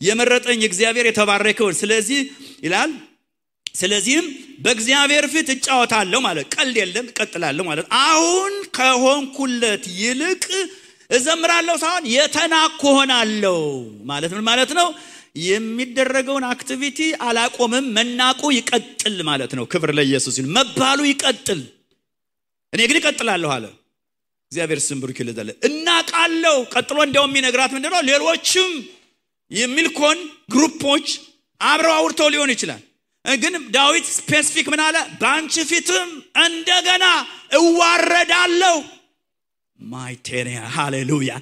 የመረጠኝ እግዚአብሔር የተባረከውን ስለዚህ ይላል። ስለዚህም በእግዚአብሔር ፊት እጫወታለሁ ማለት ቀልድ የለም እቀጥላለሁ ማለት አሁን ከሆንኩለት ይልቅ እዘምራለሁ ሳይሆን የተናኩ ሆናለሁ ማለት ምን ማለት ነው? የሚደረገውን አክቲቪቲ አላቆምም፣ መናቁ ይቀጥል ማለት ነው። ክብር ለኢየሱስ ይሁን። መባሉ ይቀጥል፣ እኔ ግን እቀጥላለሁ አለ። እግዚአብሔር ስም ብሩክ ይለዛል። እናቃለው ቀጥሎ እንደውም ይነግራት ምንድነው ሌሎችም የሚልኮን ግሩፖች አብረው አውርተው ሊሆን ይችላል። ግን ዳዊት ስፔሲፊክ ምን አለ? ባንቺ ፊትም እንደገና እዋረዳለሁ። ማይቴሪያ ሃሌሉያ።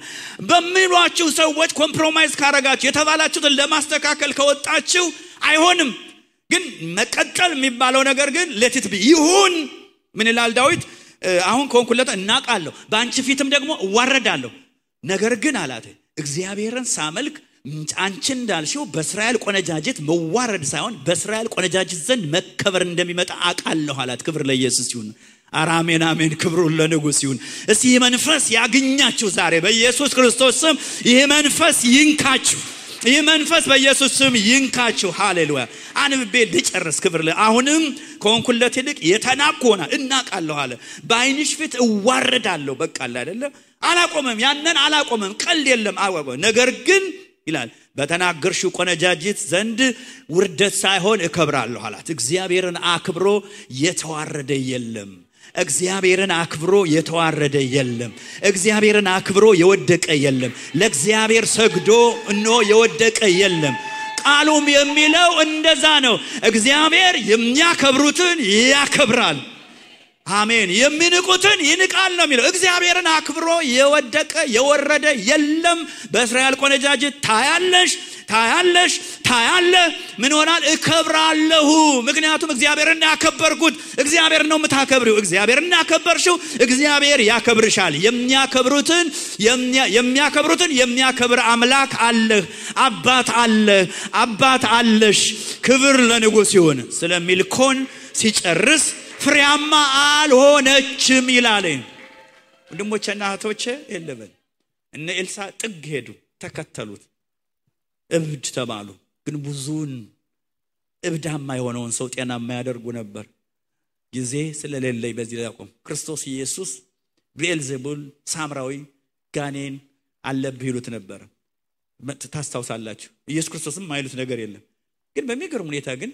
በሚሏችሁ ሰዎች ኮምፕሮማይዝ ካረጋችሁ የተባላችሁትን ለማስተካከል ከወጣችሁ አይሆንም። ግን መቀጠል የሚባለው ነገር ግን ለቲት ይሁን ምን ይላል ዳዊት? አሁን ኮንኩለታ እናቃለሁ ባንቺ ፊትም ደግሞ እዋረዳለሁ። ነገር ግን አላት እግዚአብሔርን ሳመልክ አንቺ እንዳልሽው በእስራኤል ቆነጃጅት መዋረድ ሳይሆን በእስራኤል ቆነጃጅት ዘንድ መከበር እንደሚመጣ አቃለሁ አላት። ክብር ለኢየሱስ ይሁን። አሜን አሜን። ክብሩ ለንጉስ ይሁን። እስቲ መንፈስ ያግኛችሁ ዛሬ በኢየሱስ ክርስቶስ ስም። ይሄ መንፈስ ይንካችሁ። ይሄ መንፈስ በኢየሱስ ስም ይንካችሁ። ሃሌሉያ። አንብቤ ልጨርስ። ክብር አሁንም ኮንኩለት ይልቅ የተናቆና እናቃለሁ አለ። በአይንሽ ፊት እዋረዳለሁ። በቃ አይደለ አላቆመም። ያንን አላቆመም። ቀልድ የለም አወቀ። ነገር ግን ይላል በተናገርሽው ቆነጃጅት ዘንድ ውርደት ሳይሆን እከብራለሁ አላት። እግዚአብሔርን አክብሮ የተዋረደ የለም። እግዚአብሔርን አክብሮ የተዋረደ የለም። እግዚአብሔርን አክብሮ የወደቀ የለም። ለእግዚአብሔር ሰግዶ እነሆ የወደቀ የለም። ቃሉም የሚለው እንደዛ ነው። እግዚአብሔር የሚያከብሩትን ያከብራል። አሜን። የሚንቁትን ይንቃል ነው የሚለው። እግዚአብሔርን አክብሮ የወደቀ የወረደ የለም። በእስራኤል ቆነጃጅት ታያለ ምን ሆናል? እከብራለሁ። ምክንያቱም እግዚአብሔርን ያከበርኩት እግዚአብሔር ነው የምታከብሪው። እግዚአብሔርን ያከበርሽው እግዚአብሔር ያከብርሻል። የሚያከብሩትን የሚያከብር አምላክ አለህ። አባት አለሽ። ክብር ለንጉስ ይሁን። ስለሚልኮን ሲጨርስ ፍሬያማ አልሆነችም ይላል። ወንድሞቼና እህቶቼ የለበል እነ ኤልሳ ጥግ ሄዱ፣ ተከተሉት፣ እብድ ተባሉ። ግን ብዙን እብዳማ የሆነውን ሰው ጤናማ ያደርጉ ነበር። ጊዜ ስለሌለኝ በዚህ ላይ አቆም። ክርስቶስ ኢየሱስ ቤልዜቡል ሳምራዊ ጋኔን አለብህ ይሉት ነበር። ታስታውሳላችሁ። ኢየሱስ ክርስቶስም ማይሉት ነገር የለም። ግን በሚገርም ሁኔታ ግን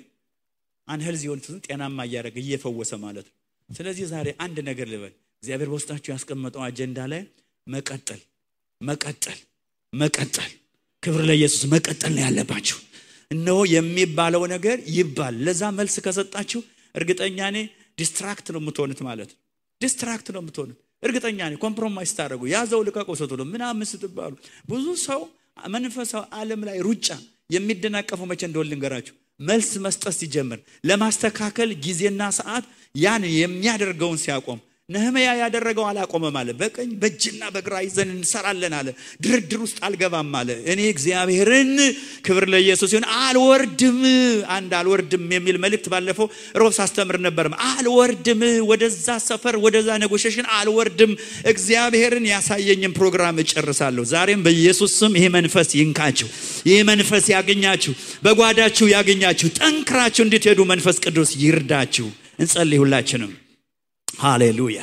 አንሄልዚ የሆኑትን ጤናማ ያደረገ እየፈወሰ ማለት ነው። ስለዚህ ዛሬ አንድ ነገር ልበል። እግዚአብሔር በውስጣችሁ ያስቀመጠው አጀንዳ ላይ መቀጠል ክብር ለኢየሱስ መቀጠል ነው ያለባችሁ። እነሆ የሚባለው ነገር ይባል። ለዛ መልስ ከሰጣችሁ እርግጠኛ ነኝ ዲስትራክት ነው የምትሆኑት ማለት ነው። ዲስትራክት ነው የምትሆኑት እርግጠኛ ነኝ። ኮምፕሮማይዝ ታደርጉ ያዘው ልቀቀው ሰጥቶ ምናምን ስትባሉ ብዙ ሰው መንፈሳዊ ዓለም ላይ ሩጫ የሚደናቀፈው መቼ እንደሆነ ልንገራችሁ። መልስ መስጠት ሲጀምር ለማስተካከል ጊዜና ሰዓት ያን የሚያደርገውን ሲያቆም ነህምያ ያደረገው አላቆመም አለ። በቀኝ በእጅና በግራ ይዘን እንሰራለን አለ። ድርድር ውስጥ አልገባም አለ። እኔ እግዚአብሔርን ክብር ለኢየሱስ ይሁን አልወርድም የሚል መልእክት ባለፈው ሮብስ አስተምር ነበር። አልወርድም ወደዛ ሰፈር ወደዛ ኔጎሺዬሽን አልወርድም። እግዚአብሔርን ያሳየኝን ፕሮግራም እጨርሳለሁ። ዛሬም በኢየሱስ ስም ይሄ መንፈስ ይንካችሁ። ይሄ መንፈስ ያገኛችሁ፣ በጓዳችሁ ያገኛችሁ፣ ጠንክራችሁ እንድትሄዱ መንፈስ ቅዱስ ይርዳችሁ። እንጸልይ ሁላችንም። ሃሌሉያ።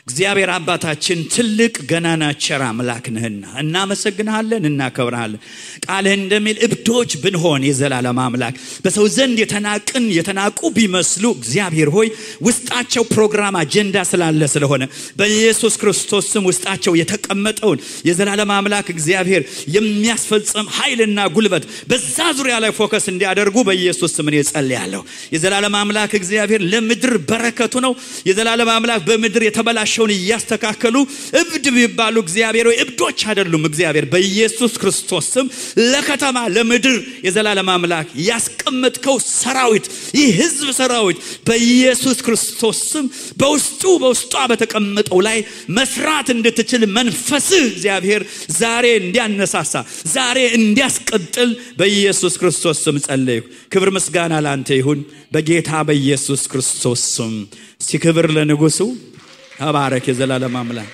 እግዚአብሔር አባታችን ትልቅ ገናና ቸር አምላክ ነህና እናመሰግንሃለን፣ እናከብርሃለን። ቃልህ እንደሚል እብዶች ብንሆን የዘላለም አምላክ በሰው ዘንድ የተናቁ ቢመስሉ እግዚአብሔር ሆይ ውስጣቸው ፕሮግራም አጀንዳ ስላለ ስለሆነ በኢየሱስ ክርስቶስ ስም ውስጣቸው የተቀመጠውን የዘላለም አምላክ እግዚአብሔር የሚያስፈጽም ኃይልና ጉልበት በዛ ዙሪያ ላይ ፎከስ እንዲያደርጉ በኢየሱስ ስም እጸልያለሁ። የዘላለም አምላክ እግዚአብሔር ለምድር በረከቱ ነው። የዘላለም አምላክ በምድር የተበላሸውን ያስተካከሉ እብድ ቢባሉ እግዚአብሔር ወይ እብዶች አይደሉም። እግዚአብሔር በኢየሱስ ክርስቶስ ስም ለከተማ ለምድር የዘላለም አምላክ ያስቀመጥከው ሰራዊት ይህ ህዝብ ሰራዊት በኢየሱስ ክርስቶስ ስም በውስጧ በተቀመጠው ላይ መስራት እንድትችል መንፈስህ እግዚአብሔር ዛሬ እንዲያነሳሳ ዛሬ እንዲያስቀጥል በኢየሱስ ክርስቶስ ስም ጸልዩ። ክብር ምስጋና ላንተ ይሁን በጌታ በኢየሱስ ክርስቶስ ስም። ሲክብር ለንጉሱ ተባረክ የዘላለም አምላክ።